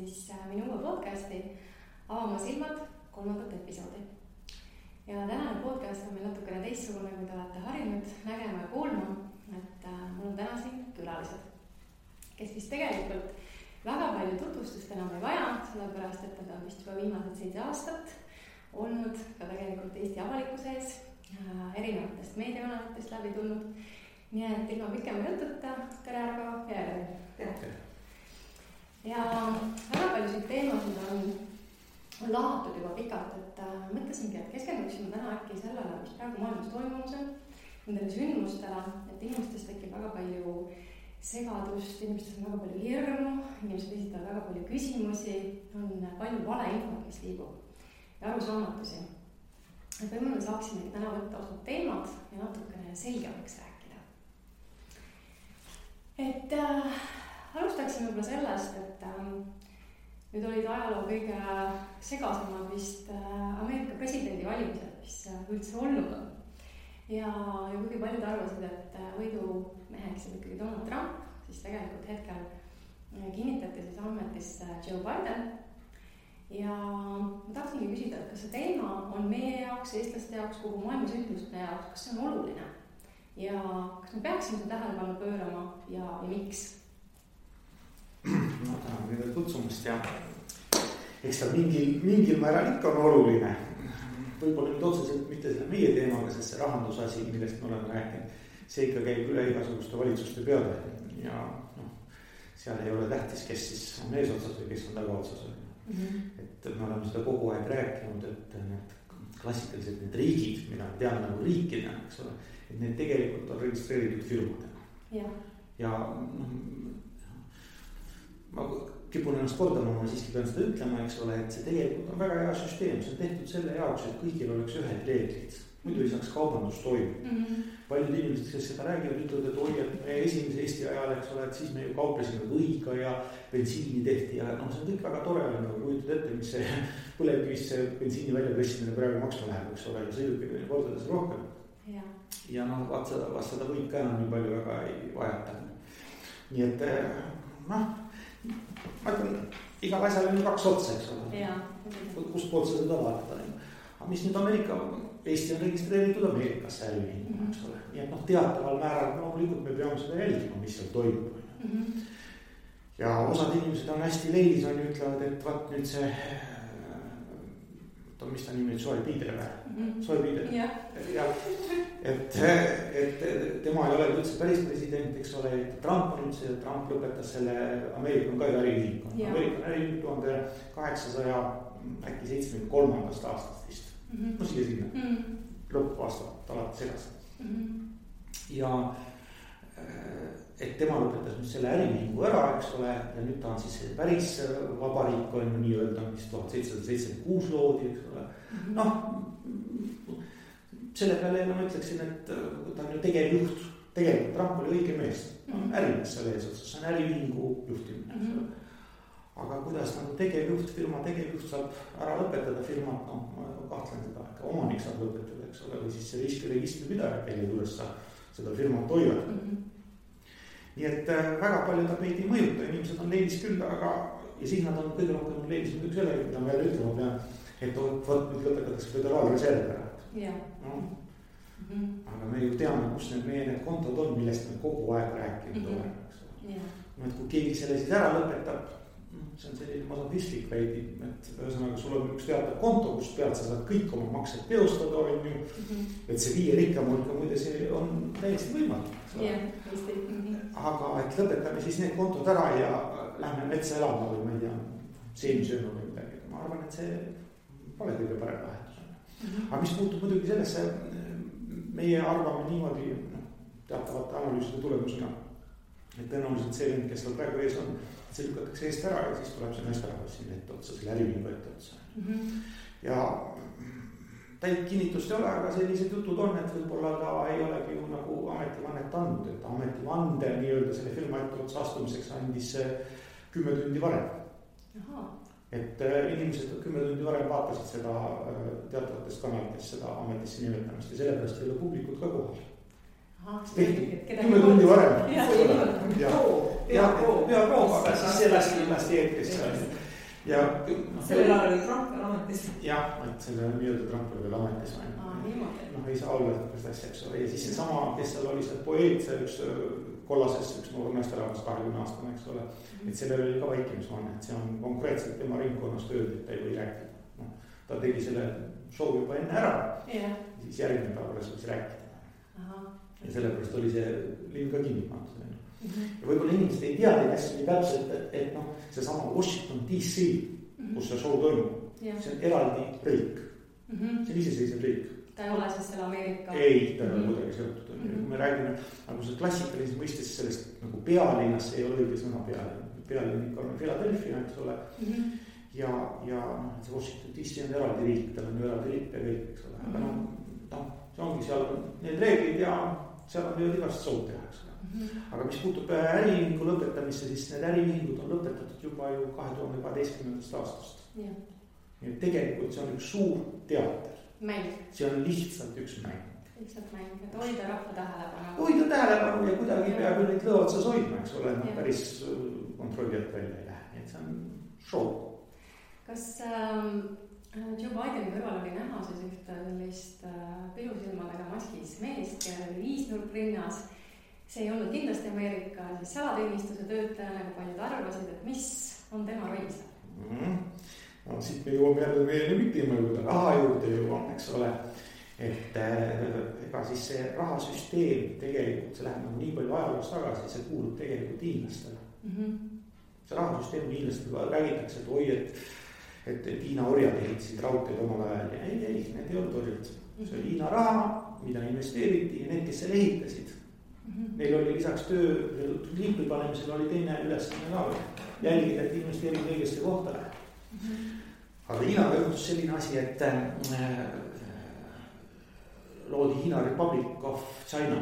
siis minu uue podcasti Avama silmad 3. episoodi. Ja tänane podcast on meil natukene teistsugune, kui te olete harjunud nägema ja kuulma, et mul on täna siin külalised, kes vist tegelikult väga palju tutvustust enam ei vaja, sellepärast et nad on vist juba viimased 7 aastat olnud ka tegelikult Eesti avalikkuse ees, erinevatest meediakanalitest läbi tulnud. Nii et ilma pikema jututa, tere Argo ja Elari. Ja väga paljusid teemasid on lahatud juba pikalt, et mõtlesingi, et keskenduksime täna äkki sellele, mis praegu maailmas toimumas on, nendele sündmustele, et inimestest tekib väga palju segadust, inimestest on väga palju hirmu, inimesed esitavad väga palju küsimusi, on palju valeinfot, mis liigub ja arusaamatusi. Et võib-olla me saaksimegi täna võtta osad teemad ja natukene selgemaks rääkida. Et alustaksime võib-olla sellest, et nüüd olid ajaloo kõige segasemad vist Ameerika presidendivalimised, mis üldse olnud on. Ja kuigi paljud arvasid, et võidumeheks on ikkagi Donald Trump, siis tegelikult hetkel kinnitati siis ametisse Joe Biden. Ja ma tahtsingi küsida, et kas see teema on meie jaoks, eestlaste jaoks, kogu maailma sündmuste jaoks, kas see on oluline? Ja kas me peaksime seda tähelepanu pöörama ja miks? Ma tänan kõige kutsumast ja eks ta mingil määral ikka on oluline. Võib-olla nüüd otseselt mitte selle meie teemaga, sest see rahandusasi, millest me oleme rääkinud, see ikka käib üle igasuguste valitsuste peale ja seal ei ole tähtis, kes siis on eesotsas või kes on tagaotsas. Et me oleme seda kogu aeg rääkinud, et need klassikalised need riigid, mida me teame nagu riikidena, eks ole, et need tegelikult on registreeritud firmadena. Ja ma kipun ennast kordama, ma siiski pean seda ütlema, eks ole, et see tegelikult on väga hea süsteem, see on tehtud selle jaoks, et kõigil oleks ühed reeglid, muidu ei saaks kaubandus toimida. Paljud inimesed, kes seda räägivad, ütlevad, et oi, et meie esimese Eesti ajal, eks ole, et siis me ju kauplesime võiga ja bensiini tehti ja see on kõik väga tore, nagu kujutad ette, mis see põlevkivist see bensiini väljapressimine praegu maksma läheb, eks ole, ja sõidukid on kordades rohkem. Ja vast seda võid ka enam nii palju väga ei vajata. Nii et ma ütlen, igal asjal on 2 otsa, eks ole. Kust poolt sa seda vaadata. Aga mis nüüd Eesti on registreeritud Ameerikasse äriühinguna, eks ole. Nii et teataval määral loomulikult me peame seda jälgima, mis seal toimub. Ja osad inimesed on hästi leilis, on ju ütlevad, et vaat nüüd see mis ta nimi, Joe Biden või? Ja et tema ei ole üldse päris president, eks ole, et Trump on üldse, Trump lõpetas selle, Ameerika on ka äriühing. Ameerika on äriühing 1873. aastast vist. Siia sinna. Lõppaastat alati segast. Ja et tema lõpetas nüüd selle äriühingu ära, eks ole, ja nüüd ta on siis päris vabariik on ju nii-öelda, mis 1776 loodi, eks ole. Selle peale ma ütleksin, et ta on ju tegevjuht, tegelikult Trump oli õige mees, ärimees selle eesotsas, see on äriühingu juhtimine, eks ole. Aga kuidas tegevjuht, firma tegevjuht saab ära lõpetada firmat, ma kahtlen seda, ka omanik saab lõpetada, eks ole, või siis see registripidaja, kelle juures sa seda firmat hoiad. Nii et väga palju ta meid ei mõjuta, inimesed on leilis küll, aga ja siis nad on kõige rohkem leilis muidugi selle, mida ma jälle ütlema pean, et võt nüüd lõpetatakse föderaalreserv ära. Aga me ju teame, kus need kontod on, millest me kogu aeg rääkinud oleme. Et kui keegi selle siis ära lõpetab, see on selline masodistlik veidi, et ühesõnaga sul on üks teatav konto, kus pealt sa saad kõik oma maksed teostada, on ju, et see 5 rikkam hulka muide see on täiesti võimalik. Aga et lõpetame siis need kontod ära ja lähme metsa elama või ma ei tea, seemsööma või midagi. Ma arvan, et see pole kõige parem lahendus. Aga mis puutub muidugi sellesse, meie arvame niimoodi teatavate analüüside tulemusena, et tõenäoliselt see vend, kes seal praegu ees on, see lükatakse eest ära ja siis tuleb see meesterahvas siin ette otsa, selle äriühingu ette otsa. Ja täit kinnitust ei ole, aga sellised jutud on, et võib-olla ta ei olegi ju nagu ametivannet andnud, et ametivande nii-öelda selle firma ette otsa astumiseks andis 10 tundi varem. Et inimesed 10 tundi varem vaatasid seda teatavatest kanalitest seda ametisse nimetamist ja sellepärast ei ole publikut ka kohal. Tehti 10 tundi varem. Ja peaproov, aga siis see lasti eetrisse. ja sellel ajal oli Trump veel ametis. jah, et selle nii-öelda Trump oli veel ametis. Ei saa olla seda asja, eks ole. Ja siis seesama, kes seal oli see poeet, see üks kollases, üks noor meesterahvas 20 aastane, eks ole. Et sellel oli ka vaikimisvanne, et see on konkreetselt tema ringkonnas tööd, et ta ei või rääkida. No, ta tegi selle show juba enne ära. Ja siis järgmine päev alles võis rääkida. Ja sellepärast oli see linn ka kinni pandud. Ja võib-olla inimesed ei tea neid asju nii täpselt, et noh, seesama Washington DC, kus see show toimub, see on eraldi riik. See on iseseisev riik. Ta ei ole siis selle Ameerika? Ei, ta ei ole kuidagi seotud. Kui me räägime nagu see klassikalises mõistes sellest nagu pealinnas, see ei ole õige sõna pealinn ikka on Philadelphia, eks ole. Ja see Washington DC on eraldi riik, tal on eraldi lipp ja kõik, eks ole. Aga noh, see ongi seal need reeglid ja seal on võivad igast sood teha, eks ole. Aga mis puutub äriühingu lõpetamisse, siis need äriühingud on lõpetatud juba ju 2012. aastast. Nii et tegelikult see on üks suur teater. Mäng. See on lihtsalt üks mäng. Lihtsalt mäng, et hoida rahva tähelepanu. Hoida tähelepanu ja kuidagi peab ju neid lõotsas hoidma, eks ole, päris kontrollijalt välja ei lähe. Et see on show. Kas Joe Bideni kõrval oli näha siis ühte sellist pilusilmadega maskis meest, kellel oli 5 nurk rinnas. See ei olnud kindlasti Ameerika siis salateenistuse töötaja, nagu paljud arvasid, et mis on tema roll seal? No siit me jõuame jälle meie lemmikteema juurde, raha juurde jõuame, eks ole. Et ega siis see rahasüsteem tegelikult, see läheb nagu nii palju ajaloos tagasi, see kuulub tegelikult hiinlastele. See rahasüsteem hiinlastele räägitakse, et oi, et Hiina orjad ehitasid raudteed omal ajal ja ei, need ei olnud orjad. See oli Hiina raha, mida investeeriti ja need, kes selle ehitasid. Neil oli lisaks töö liipi panemisel oli teine ülesanne ka jälgida, et investeerid õigesse kohta. Aga Hiinaga juhtus selline asi, et loodi Hiina Republic of China.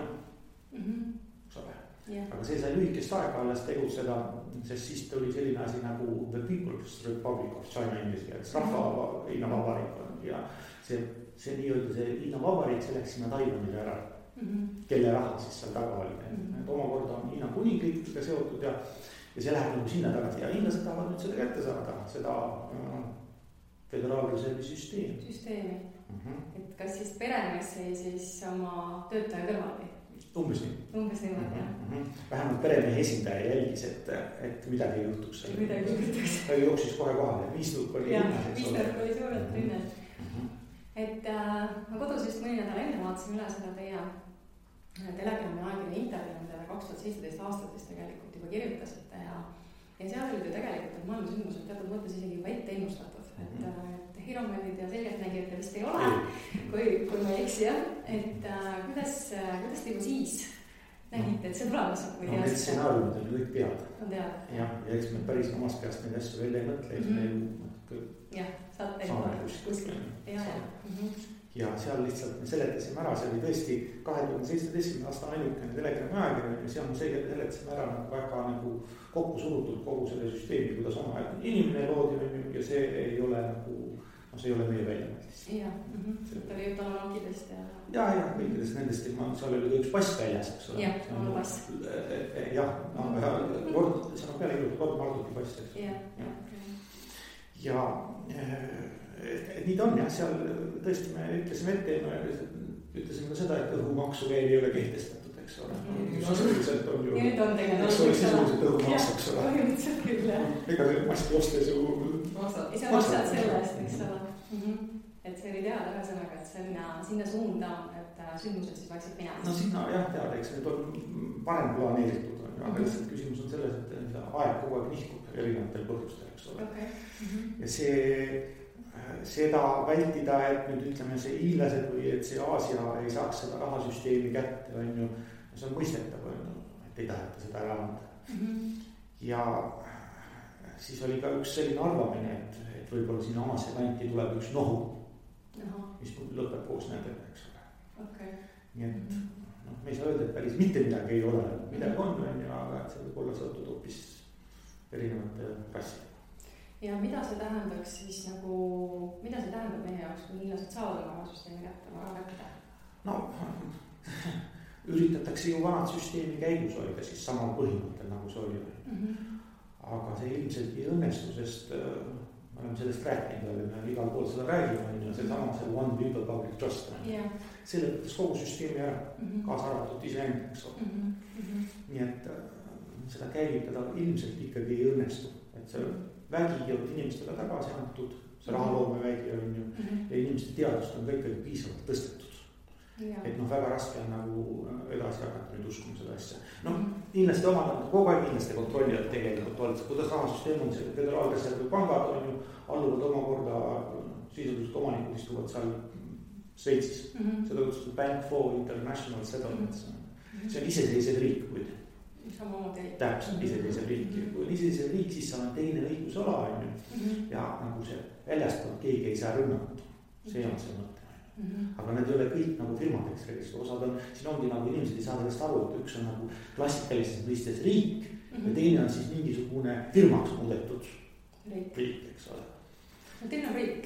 Aga see sai lühikest aega alles tegutseda, sest siis tuli selline asi nagu The People's Republic of China inglise keeles, rahva Hiina vabariik. Ja see nii-öelda see Hiina vabariik, see läks sinna Taiwanile ära. Kelle raha siis seal taga oli. Et omakorda on Hiina kuningriikidega seotud ja see läheb nagu sinna tagasi ja hiinlased tahavad nüüd seda kätte saada, seda föderaalreservi süsteemi. Et kas siis peremees sai siis oma töötaja kõrvaldi? Umbes niimoodi, jah. Vähemalt peremehe esindaja jälgis, et midagi ei juhtuks. Ta jooksis kohe kohale, 5 nurk oli linnas. 5 nurk oli suurelt linnas. Et ma kodus just mõni nädal enne vaatasin üle seda teie Telegrami aegine intervjuu, mida te 2017 aastates tegelikult juba kirjutasite ja seal olid ju tegelikult, et maailma sündmused teatud mõttes isegi juba ette ennustatud, et hiromandid ja selgeltnägijad te vist ei ole, kui ma ei eksi, jah, et kuidas te juba siis nägite, et see tulemas on? No need stsenaariumid on kõik teada. On teada. Ja eks me päris omast käest neid asju välja ei mõtle, jah, saate kuskil. Ja seal lihtsalt me seletasime ära, see oli tõesti 2017. aasta ainukene Telegrami ajakirja ja seal me seletasime ära väga nagu kokku surutud kogu selle süsteemi, kuidas oma inimene loodi ja see ei ole nagu, see ei ole meie väljamõttis. Jah, ta oli juttu nokidest ja... Ja, kõikidest nendest, seal oli ka üks pass väljas, eks ole. Jah, on pass. Jah, see on peale ilutud kord Marduti pass. Ja nii ta on jah, seal tõesti me ütlesime ette ja ütlesime ka seda, et õhumaksu veel ei ole kehtestatud, eks ole. Sisuliselt on ju... Nüüd on tegelikult. Eks ole sisuliselt õhumaks, eks ole. Põhimõtteliselt küll, jah. Ega see maski ostes ju... Ise maksad selle eest, eks ole. Et see oli teada ühesõnaga, et sinna suunda, et sündmused siis vaikselt minema. No sinna jah teada, eks need on parem planeeritud. Aga lihtsalt küsimus on selles, et aeg kogu aeg nihkub erinevatel põhjustel, eks ole. Ja seda vältida, et nüüd ütleme see hiinlased või et see Aasia ei saaks seda rahasüsteemi kätte, on ju, see on mõistetav, et ei taheta seda ära anda. Ja siis oli ka üks selline arvamine, et võib-olla siin Aasia kanti tuleb üks nohu, mis lõpeb koos nendega, eks ole. Nii et me ei saa öelda, et päris mitte midagi ei ole, midagi on, aga et see võib olla seotud hoopis erinevate rassidega. Ja mida see tähendaks siis nagu, mida see tähendab meie jaoks, kui hiinlased saavad oma süsteemi kätte, oma kätte? No, üritatakse ju vanad süsteemi käigus hoida siis samal põhimõttel, nagu see oli. Aga see ilmselt ei õnnestu, sest me oleme sellest rääkinud, me igal pool seda räägime, seesama see one people public trust. See lõpetas kogu süsteemi ära, kaasa arvatud iseenda, eks ole. Nii et seda käivitada ilmselt ikkagi ei õnnestu, et see vägi on inimestele tagasi antud, see rahaloome vägi on ju, ja inimeste teadust on ka ikkagi piisavalt tõstetud. Et väga raske on nagu edasi hakata nüüd uskuma seda asja. Inimeste omad, kogu aeg inimeste kontrollijad tegelikult olid, kuidas rahasüsteem on, see Föderaalreservi pangad on ju, alluvad omakorda, sisuliselt omanikud istuvad seal Šveitsis. Seda kutsutud Bank for International Settlements. See on iseseisev riik, muide. Täpselt iseseisev riik. Kui on iseseisev riik, siis seal on teine õigusala on ju. Ja nagu see väljastanud keegi ei saa rünnata. See on see mõte. Aga need ei ole kõik nagu firmadeks registri, osad on, siin ongi nagu inimesed ei saa sellest aru, et üks on nagu klassikalises mõistes riik ja teine on siis mingisugune firmaks muudetud riik, eks ole. Teil on riik?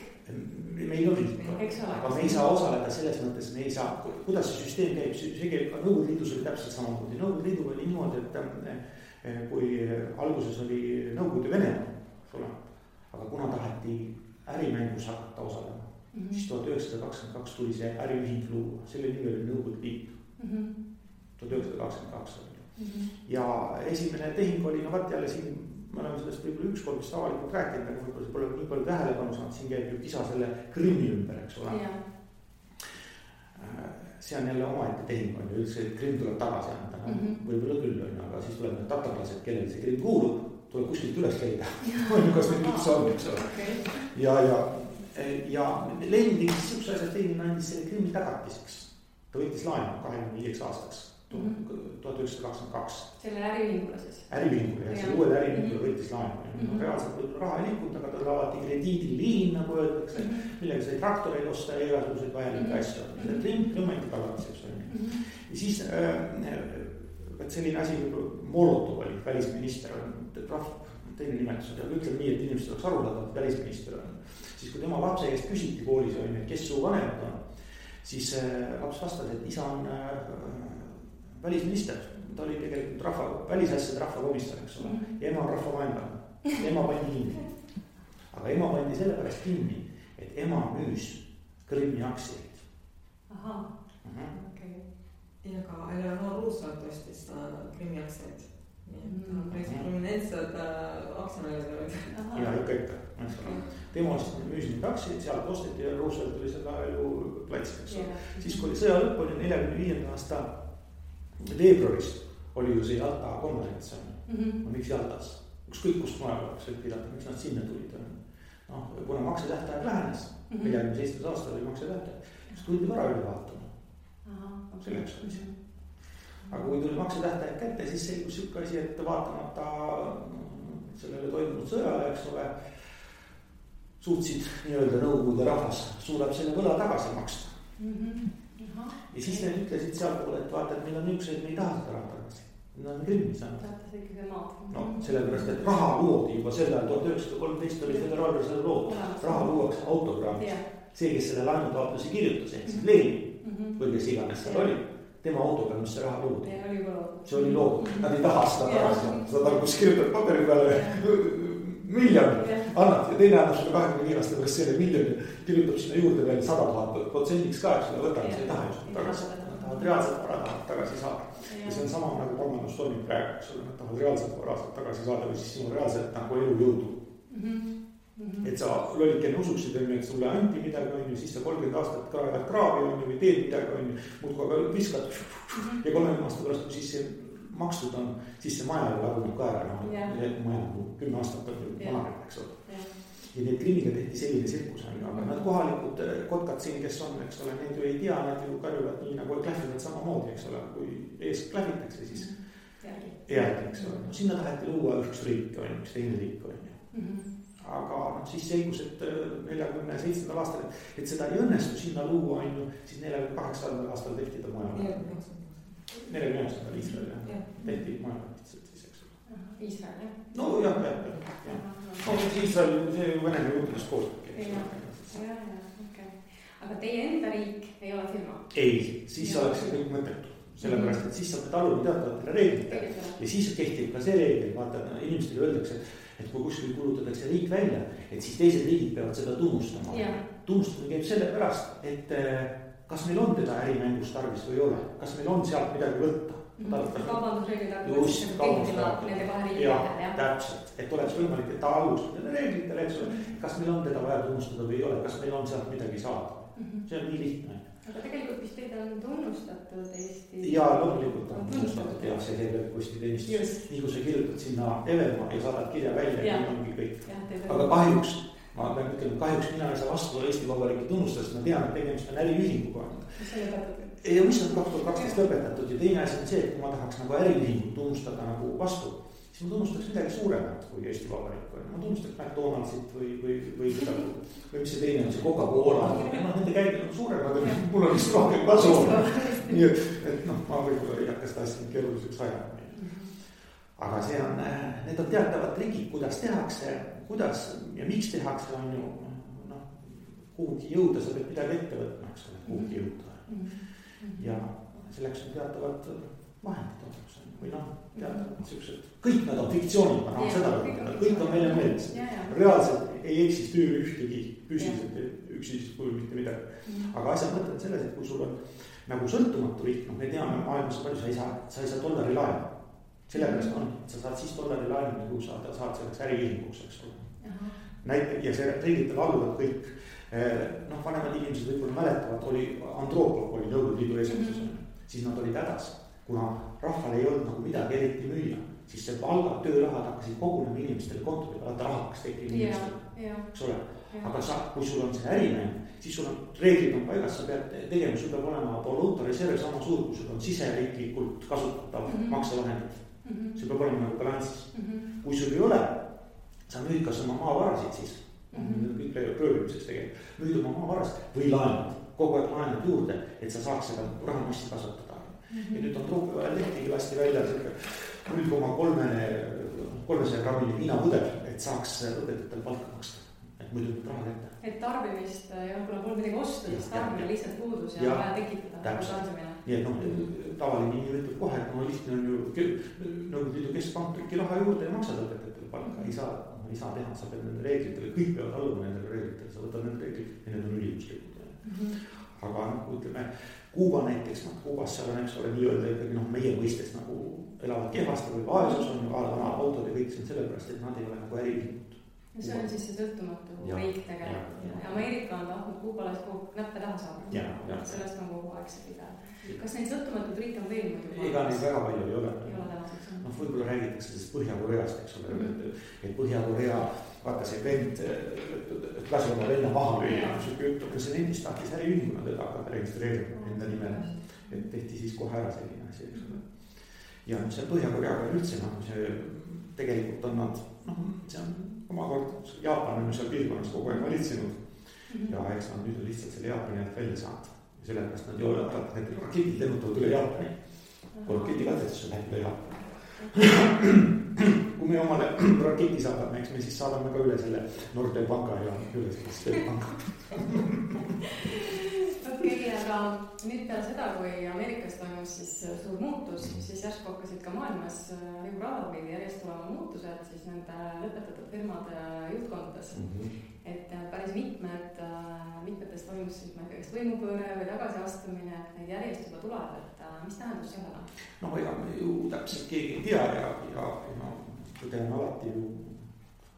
Meil on riik, aga me ei saa osaleda selles mõttes, me ei saa, kuidas see süsteem käib, see käib ka Nõukogude Liidus oli täpselt samamoodi. Nõukogude Liiduga oli niimoodi, et kui alguses oli Nõukogude Venemaa, aga kuna taheti ärimängus hakata osalema, siis 1922 tuli see äriühing luua, selle nimi oli Nõukogude Liit. 1922 oli. Ja esimene tehing oli, jälle siin, me oleme sellest võib-olla ükskord vist avalikult rääkinud, aga võib-olla see pole nii palju tähelepanu saanud, siin käib ju kisa selle Krimmi ümber, eks ole. See on jälle omaette tehing on ju, üldse Krimm tuleb tagasi anda, võib-olla küll on, aga siis tuleb need tatarlased, kellel see Krimm kuulub, tuleb kuskilt üles leida. Kas need üldse on, eks ole. Ja Lenin tegi siukse asjad, Lenin andis selle Krimmi tagatiseks. Ta võttis laenu 25 aastaks, 1922. Selle äriühingule siis? Äriühingule, ja selle uuele äriühingule võttis laenu. Reaalselt võib raha ei liikunud, aga tal avati krediidiliin, nagu öeldakse, millega sai traktoreid osta ja igasuguseid vajalikke asju. Krimm anti tagatiseks. Ja siis selline asi, Molotov oli välisminister, teine nimetus, aga ütleme nii, et inimesed oleks arvutavad, et välisminister on. Siis kui tema lapse eest küsiti koolis, kes su vanemad on, siis laps vastas, et isa on välisminister. Ta oli tegelikult välisasjade rahvakomissar, eks ole. Ja ema on rahvavaenlane. Ema pandi kinni. Aga ema pandi sellepärast kinni, et ema müüs Krimmi aktsiaid. Aha, okei. Ja ka Eleanor Roosevelt ostis Krimmi aktsiaid. Päris prominentsed aktsionärid olid. Ja ikka. Tema müüs neid aktsiaid, sealt osteti ja Roosevelt oli seda ju platsiks. Siis kui oli sõja lõpp, oli 45. aasta veebruaris oli ju see Jalta konverents. Miks Jaltas? Ükskõik kust maja oleks võib pidada, miks nad sinna tulid. Kuna maksetähtaeg lähenes, 47. aastal oli maksetähtaeg, siis tuldi vara üle vaatama. Selleks oli see. Aga kui tuli maksetähtaeg kätte, siis selgus siuke asi, et vaatamata sellele toimunud sõjale, eks ole, suutsid nii-öelda Nõukogude rahvas suudab selle võla tagasi maksta. Ja siis need ütlesid seal poole, et vaata, et meil on niisugused, me ei taha seda raha tagasi. Nad on Krimmi saanud. Tahate see ikkagi maad. No, sellepärast, et raha loodi juba sellel 1913 oli Föderaalreservi lood. Raha luuakse autograafis. See, kes selle laenutaotluse kirjutas, ehk siis Lenin, või kes iganes seal oli, tema autograamis see raha loodi. See oli lood. Nad ei taha seda tagasi. Seda kus kirjutab paperi peale miljon annad ja teine annab sulle 25 aasta pärast selle miljoni, kirjutab sinna juurde veel 100% ka, eks võtame, see ei taha just tagasi. Nad tahavad reaalselt vara tagasi saada. Ja see on sama nagu pangandus toimib praegu, eks ole, nad tahavad reaalselt vara tagasi saada või siis sinu reaalselt nagu elu jõudu. Et sa lollikene usuksid, et sulle anti midagi on ju, siis sa 30 aastat kraevad kraavi on ju või teed midagi on ju, muudku aga viskad ja 30 aasta pärast, kui siis see makstud on, siis see maja ju laguneb ka ära, maja 10 aastat on ju vanareb, eks ole. Ja need Krimmiga tehti selline sirkus on ju, aga nad kohalikud kotkad siin, kes on, eks ole, need ju ei tea, nad ju karjuvad nii nagu klähvivad samamoodi, eks ole, kui ees klähvitakse, siis järgi, eks ole. Sinna taheti luua üks riik on ju, üks teine riik on ju. Aga siis selgus, et 47. aastal, et seda ei õnnestu sinna luua on ju, siis 48. aastal tehti ta maja. 49. Iisrael tehti majavatitselt siis, eks ole. Iisrael, jah? No jah. No Iisrael, see Venemaa juurdest koostööd. Okei. Aga teie enda riik ei ole firma? Ei, siis oleks see kõik mõttetu. sellepärast, et siis sa pead alluma teatavatele reeglitele ja siis kehtib ka see reegel, vaata, inimestele öeldakse, et kui kuskil kulutatakse riik välja, et siis teised riigid peavad seda tunnustama. Tunnustamine käib selle pärast, et kas meil on teda ärimängus tarvis või ei ole, kas meil on sealt midagi võtta. Kaubandusreeglid just, täpselt, et oleks võimalik, et ta allus nende reeglitele, eks ole, kas meil on teda vaja tunnustada või ei ole, kas meil on sealt midagi saada. See on nii lihtne. Aga tegelikult vist teid on tunnustatud Eesti. Ja loomulikult on tunnustatud ja see teeb postiteenistus. Nii kui sa kirjutad sinna Evelma ja saadad kirja välja, nii ongi kõik. Aga kahjuks, ma pean ütlema, kahjuks mina ei saa vastu Eesti Vabariigi tunnustust, ma tean, et tegemist on äriühinguga. Mis see lõpetatud? Ja mis on 2012 lõpetatud ja teine asi on see, et kui ma tahaks nagu äriühingut tunnustada nagu vastu, siis ma tunnustaks midagi suuremat kui Eesti Vabariik. Ma tunnustaks McDonaldsit või seda, või mis see teine on, see Coca-Cola. Nende käibed on suurem, aga mul on vist rohkem kasu. Nii et ma võib-olla ei hakka seda asja keeruliseks ajama. Aga see on, need on teatavad trikid, kuidas tehakse, kuidas ja miks tehakse, on ju, kuhugi jõuda, sa pead midagi ette võtma, eks ole, kuhugi jõuda. Ja selleks on teatavad vahendid olemas või teatavad siuksed, kõik nad on fiktsioonid, ma tahan seda võtta, kõik on meile meeles. Reaalselt ei eksisteeri ühtegi püsiselt üksisest kujul mitte midagi. Aga asjad mõtlevad selles, et kui sul on nagu sõltumatu riik, me teame maailmas palju, sa ei saa $1 laenu. Sellepärast on, et sa saad siis $1 laenu, kui sa saad selleks äriühinguks, eks ole. Ja see reeglitel alluvad kõik. Vanemad inimesed võib-olla mäletavad, oli Andropov oli Nõukogude Liidu eesistuses, siis nad olid hädas, kuna rahval ei olnud nagu midagi eriti müüa, siis see palga, töörahad hakkasid kogunema inimestele kontodele, vaata raha hakkas tekkima inimestele, eks ole. Aga kui sul on see ärimäng, siis sul on reeglid on paigas, sa pead tegema, sul peab olema valuuta reserv sama suur, kui sul on siseriiklikult kasutatav maksevahendid. See peab olema nagu balansis. Kui sul ei ole, sa müüd kas oma maavarasid siis. Kõik röövimiseks tegelikult. Müüd oma maavarast või laenad, kogu aeg laenad juurde, et sa saaks seda rahamassi kasvatada. Ja nüüd on truupi vahel lehtigi lasti välja 0,300 grammini viinapudel, et saaks õpetajatel palka maksta. Et muidu nüüd raha kätte. Et tarbimist ja kuna pole midagi ostu, siis tarbimine lihtsalt puudus ja vaja tekitada tarbimine. Nii et tavaline inimene ütleb kohe, et lihtne on ju Nõukogude Liidu keskpank trükki raha juurde ja maksad õpetajatel palka. Ei saa teha, sa pead nende reeglitele, kõik peavad alluma nendele reeglitele, sa võtad nende reeglid ja need on ülimuslikud. Aga ütleme, Kuuba näiteks, Kuubas seal on, eks ole, nii-öelda ikkagi meie mõistes nagu elavad kehvasti või vaesus on ju vana autod ja kõik see on sellepärast, et nad ei ole nagu äriühingud. Ja see on siis see sõltumatu riik tegelikult. Ja Ameerika on tahtnud Kuubale näppe taha saada. Sellest on kogu aeg see pidev. Kas neid sõltumatud riike on veel muidu? Ega neid väga palju ei ole. Võib-olla räägitakse sellest Põhja-Koreast, eks ole, et Põhja-Korea, vaata see vend, lasi oma venna maha lüüa, aga see vendist tahtis äriühinguna teda hakata registreerima enda nimele, et tehti siis kohe ära selline asi, eks ole. Ja see Põhja-Koreaga üldse, see tegelikult on nad, see on omakord, Jaapan on seal piirkonnas kogu aeg valitsenud ja eks nad nüüd on lihtsalt selle Jaapani alt välja saanud. Sellepärast nad ju need raketid lennutavad üle Jaapani. Kui raketikatsestus läheb üle Jaapani. Kui me omale raketi saadame, eks me siis saadame ka üle selle Nordea panga ja üle selle panga. Okei, aga nüüd peale seda, kui Ameerikas toimus siis suur muutus, siis järsku hakkasid ka maailmas Euroopa või järjest tulema muutused siis nende lõpetatud firmade juhtkondades. Et päris mitmetes toimus siis kas võimupööre või tagasiastumine, et neid järjest juba tuleb, et mis tähendus sellel on? Ega me ju täpselt keegi ei tea ja tõde on alati ju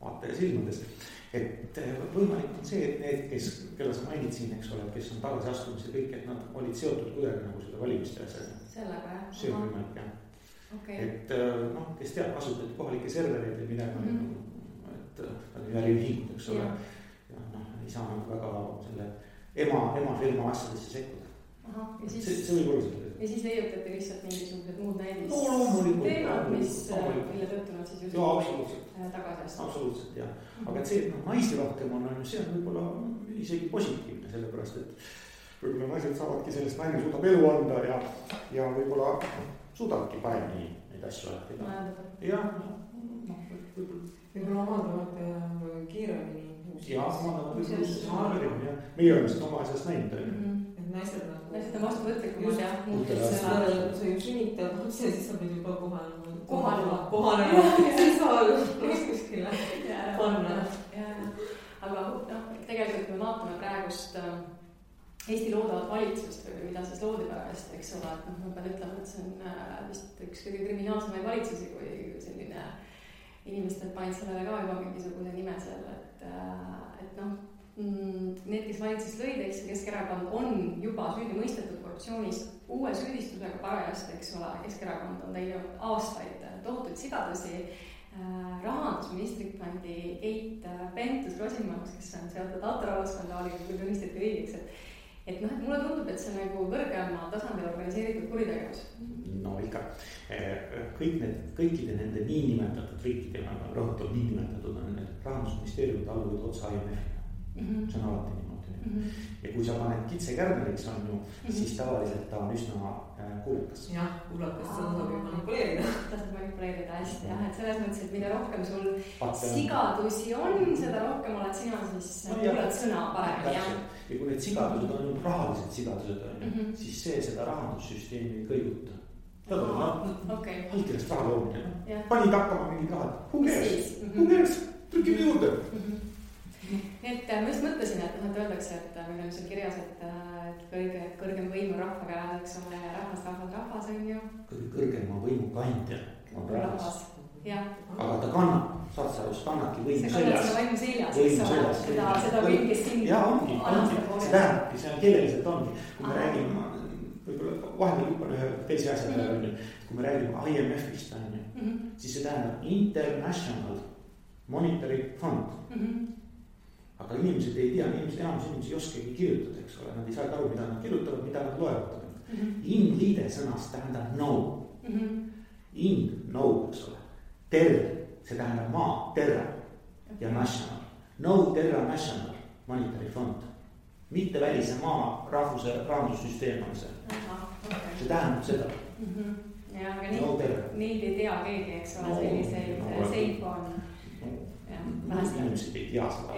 vaataja silmades. Et võimalik on see, et need, kelle sa mainid siin, eks ole, kes on tagasiastumise kõik, et nad olid seotud kuidagi nagu seda valimiste asjaga. Sellega, jah? See on võimalik, jah. Okay. Et kes teab, kasutati kohalikke servereid ja midagi, et nad on äriühingud, eks ole. Ja ei saa nagu väga selle ema firma asjadesse sekkuda. See võib olla seda. Ja siis leiutati lihtsalt mingisugused muud näidis teemad, mille tõttu nad siis just tagasi. Absoluutselt, jah. Aga et see, et naisi rohkem on, see on võib-olla isegi positiivne, sellepärast, et võib-olla naised saavadki sellest, naine suudab elu anda ja võib-olla suudabki paremini neid asju rääkida. Ja, võib-olla omandavad kiiremini. Ja omandavad kiiremini. Meie oleme seda oma asjast näinud. naised on vastuvõtlikumad jah. sa ju sünnitad lapse ja siis sa pead juba kohanema. Siis sa oled kuskile panna. Aga tegelikult kui me vaatame praegust Eesti loodavat valitsust või mida siis loodi pärast, eks ole, et ma pean ütlema, et see on vist üks kõige kriminaalsemaid valitsusi, kui selline inimestel panid sellele ka juba mingisuguse nime seal, et need, kes valitsust lõid, eks Keskerakond on juba süüdi mõistetud korruptsioonis uue süüdistusega parajasti, eks ole, Keskerakond on teinud aastaid tohutuid sigadusi, rahandusministrit pandi Keit Pentus-Rosimannus, kes on seotud autorahvaskandaaliga, kui tunnistati riigiks, et mulle tundub, et see on nagu kõrgema tasandil organiseeritud kuritegevus. No ikka, kõikide nende niinimetatud riikide, rõhutab niinimetatud on need rahandusministeeriumid alluvad otsa IMF-ile. See on alati niimoodi. Ja kui sa paned kitse kärneriks on ju, siis tavaliselt ta on üsna kuulukas. Jah, kuulakas, seda saab ju manipuleerida. Ta saab manipuleerida hästi jah, et selles mõttes, et mida rohkem sul sigadusi on, seda rohkem oled sina siis kuulad sõna paremini. Ja kui need sigadused on rahalised sigadused on, siis seda rahandussüsteemi ei kõiguta. Ta tuleb allkirjast raha loomine. Panid hakkama mingid rahad. Who cares? Trükime juurde. Et ma just mõtlesin, et öeldakse, et meil on seal kirjas, et kõrgem võim on rahva käes, eks ole, rahvas on ju. Kõrgema võimu kandja on rahvas. Aga ta kannab, saad sa just kannadki võimu seljas. See võimu seljas, eks ole, seda võim, kes sind ongi. See tähendabki, see on keeleliselt ongi. Kui me räägime, võib-olla vahepeal hüppan ühe teise asja peale, kui me räägime IMF-ist, siis see tähendab International Monetary Fund. Aga inimesed ei tea, enamus inimesi ei oskagi kirjutada, eks ole, nad ei saa aru, mida nad kirjutavad, mida nad loevad. In-liide sõnast tähendab no. No, eks ole. Terra, see tähendab maa, terra ja national. No terra national monetary fund. Mitte välise maa rahvuse rahandussüsteem on see. See tähendab seda. Ja, aga neid ei tea keegi, eks ole, selliseid seifo on. Inimesed ei tea seda.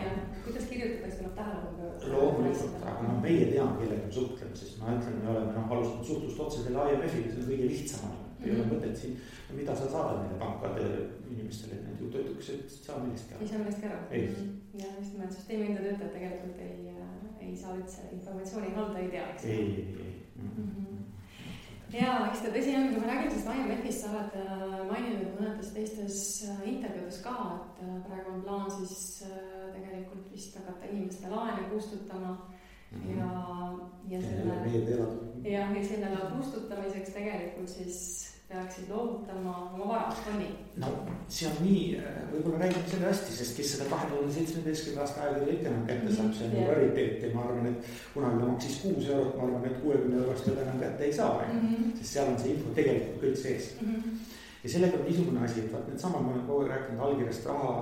Kuidas kirjutatakse, tuleb tähelepanu? Loomulikult, aga meie teame, kellega me suhtleme, sest ma ütlen, me oleme alustanud suhtlust otse selle IMF-iga, see on kõige lihtsam. Ei ole mõtet siin, mida sa saadad neile pankade inimestele, et need ju töötuks, et saa millestki ära. Ei saa millestki ära. Ei. Ja just nimelt süsteemi enda töötajad tegelikult ei saa üldse informatsiooni halda, ei tea, eks? Ei. Ja, eks ta tõsi on, kui ma räägin sellest IMF-ist, sa oled maininud mõnedes teistes intervjuudes ka, et praegu on plaan siis tegelikult vist hakata inimeste laene kustutama ja selle kustutamiseks tegelikult siis peaksid loovutama oma varast fonni. No see on nii, võib-olla räägime selle hästi, sest kes seda 2017. aasta aegade ikka kätte saab, see on rariteet ja ma arvan, et kunagi maksis 6 eurot, ma arvan, et 60 eurost juba enam kätte ei saa, sest seal on see info tegelikult kõik sees. Ja sellega on niisugune asi, et need samad ma olen kogu rääkinud allkirjast raha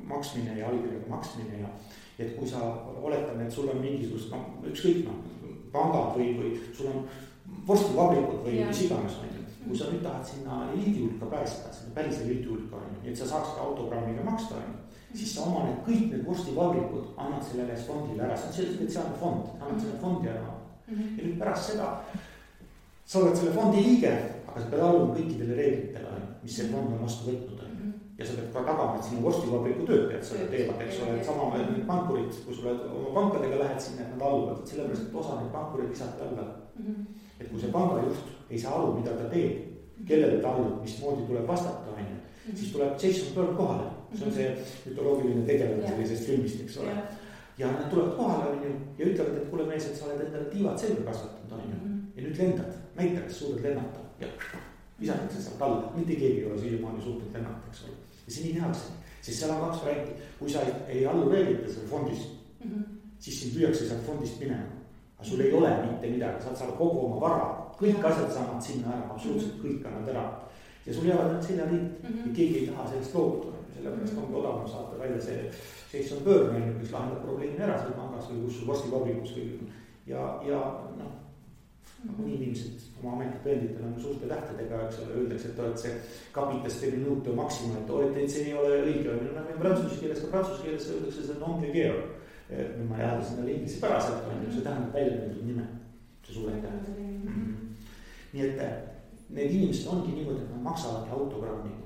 maksmine ja allkirjaga maksmine ja et kui sa oletame, et sul on mingisugust, ükskõik pangad või sul on vorstivabrikud või mis iganes, kui sa nüüd tahad sinna eliidi hulka päästa, sinna päris eliidi hulka, et sa saaks autogrammiga maksta, siis sa oma kõik need vorstivabrikud annad sellele fondile ära, see on spetsiaalne fond, annad selle fondi ära. Ja nüüd pärast seda sa oled selle fondi liige, aga sa pead alluma kõikidele reeglitele, mis see fond on vastu võtnud. Ja sa pead ka tagama, et sinu vorstivabriku töötajad seda teevad, eks ole, et sama need pankurid, kui sa oma pankadega lähed sinna, et nad alluvad, et sellepärast, et osa neid pankurid visati alla. Et kui see pangajuht ei saa aru, mida ta teeb, kellele ta allub, mismoodi tuleb vastata, siis tuleb Jason Bird kohale. See on see mütoloogiline tegelane sellisest filmist, eks ole. Ja nad tulevad kohale ja ütlevad, et kuule mees, et sa oled endale tiivad selga kasvatanud, ja nüüd lendad, näita, kas suudad lennata. Ja visatakse sealt alla, mitte keegi ei ole siiamaani suutnud lennata, eks ole. Ja see nii tehakse, sest seal on 2 varianti. Kui sa ei allu reeglite selle fondist, siis sind lüüakse sealt fondist minema. Aga sul ei ole mitte midagi, saad saada kogu oma vara, kõik asjad saavad sinna ära, absoluutselt kõik annad ära. Ja sul jäävad need seljariid ja keegi ei taha sellest loobuda. Sellepärast ongi odavam saata välja see Jason Bird, kes lahendab probleemi ära seal pangas või kus sul vorstivabrikus või ja nii inimesed oma ametipõenditel on suurte tähtedega, eks ole, öeldakse, et oled see capitas de minuto maxima, et see ei ole õige. Prantsuse keeles öeldakse, see on non-gregere. Ma jääda sinna inglise päraselt, see tähendab välja nendel nime. see suurete. Nii et need inimesed ongi niimoodi, et nad maksavadki autogrammiga.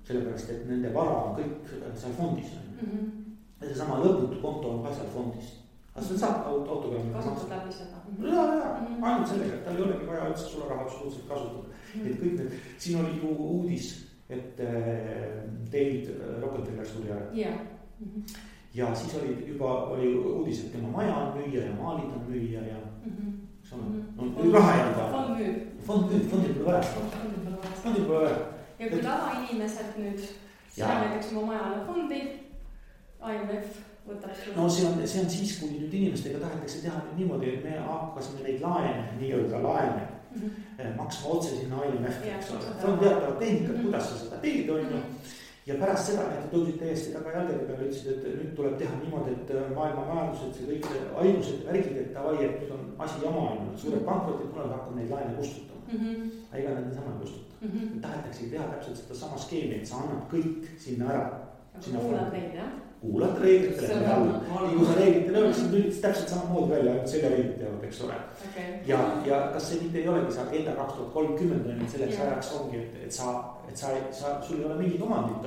Sellepärast, et nende vara on kõik seal fondis. Ja see sama lõputu konto on ka seal fondis. Aga seda saab autogrammiga kasutad läbi seda. Ainult sellega, et tal ei olegi vaja üldse sulle raha absoluutselt kasutada. Et kõik need, siin oli ju uudis, et David Rockefeller suri ära. Ja siis oli uudis, et tema maja on müüa ja maalid on müüa ja raha jääda. Fondil pole vaja. Ja kui tavainimesed nüüd näiteks oma majale fondi, IMF võtab sulle. No see on siis, kui nüüd inimestega tahetakse teha niimoodi, et me hakkasime neid laene, nii-öelda laene maksma otse sinna IMF-i. See on teatavad tehnikad, kuidas sa seda teed, on ju. Ja pärast seda, et tõusid täiesti taga jalgade peale, ütlesid, et nüüd tuleb teha niimoodi, et maailma majandused, see kõik haigused ja värgid, et davai, et nüüd on asi jama, suured pankrotid, kuna hakkab neid laene kustutama. Ega nad niisama ei kustuta. Tahetakse teha täpselt seda sama skeemi, et sa annad kõik sinna ära. Kuulad neid, jah? Kuulad reeglitele alla. Nii kui sa reeglitele öeldes, siis nüüd täpselt samamoodi välja, et selle reeglid teevad, eks ole. Ja kas see mitte ei olegi see agenda 2030, selleks ajaks ongi, et sul ei ole mingit omandit,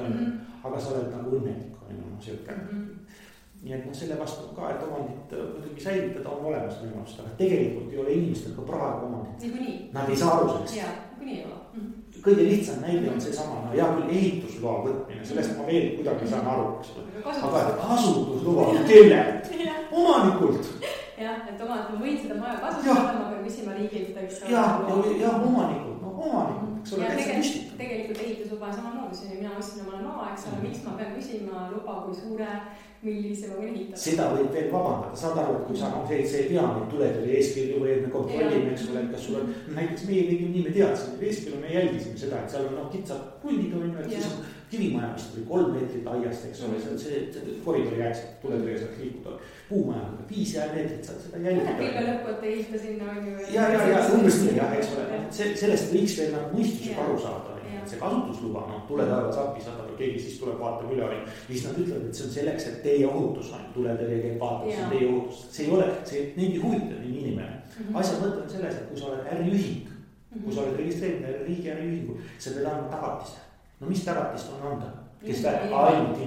aga sa oled nagu õnnelik, Nii et selle vastu ka, et omandit muidugi säilitada on olemas võimalust, aga tegelikult ei ole inimestel ka praegu omandit. Nad ei saa aru sellest. Kõige lihtsam näide on see sama, hea küll ehitusloa võtmine, sellest ma veel kuidagi saan aru, aga kasutusloa kellelt? Omanikult. Jah, et ma võin seda maja kasutada, ma pean küsima riigilt, eks ole. Ja omanikult, eks ole, tegelikult ehitusluba samamoodi, mina ostsin omale maa, eks ole, miks ma pean küsima luba, kui suure, millise ma võin ehitada. Seda võib veel vabandada, saad aru, et kui sa see ei tea neid tuletõrje eeskirju või et me kontrollime, eks ole, kas sul on, näiteks meie tegime nii, me teadsime, eeskirju me jälgisime seda, et seal on kitsad puldid, et siis on kivimaja vist või 3 meetrit aiast, eks ole, see koridori jääks, tuletõrje saaks liikuda, puumaja 5 meetrit saad seda jälgida. Pilve lõppu, et ehita sinna on ju. Ja, umbes nii, eks ole, sellest võiks veel mõistusega aru saada. See kasutusluba, tuletaevas appi saada või keegi siis tuleb vaatab üle ja siis nad ütlevad, et see on selleks, et teie ohutus on tuletõrje käib vaatab, see on teie ohutus. See ei ole, neid ei huvita nii inimene. Asja mõte on selles, et kui sa oled äriühing, kui sa oled registreerinud riigi äriühingu, sa pead andma tagatise. No mis tagatist on anda? Kes väärib? Ainult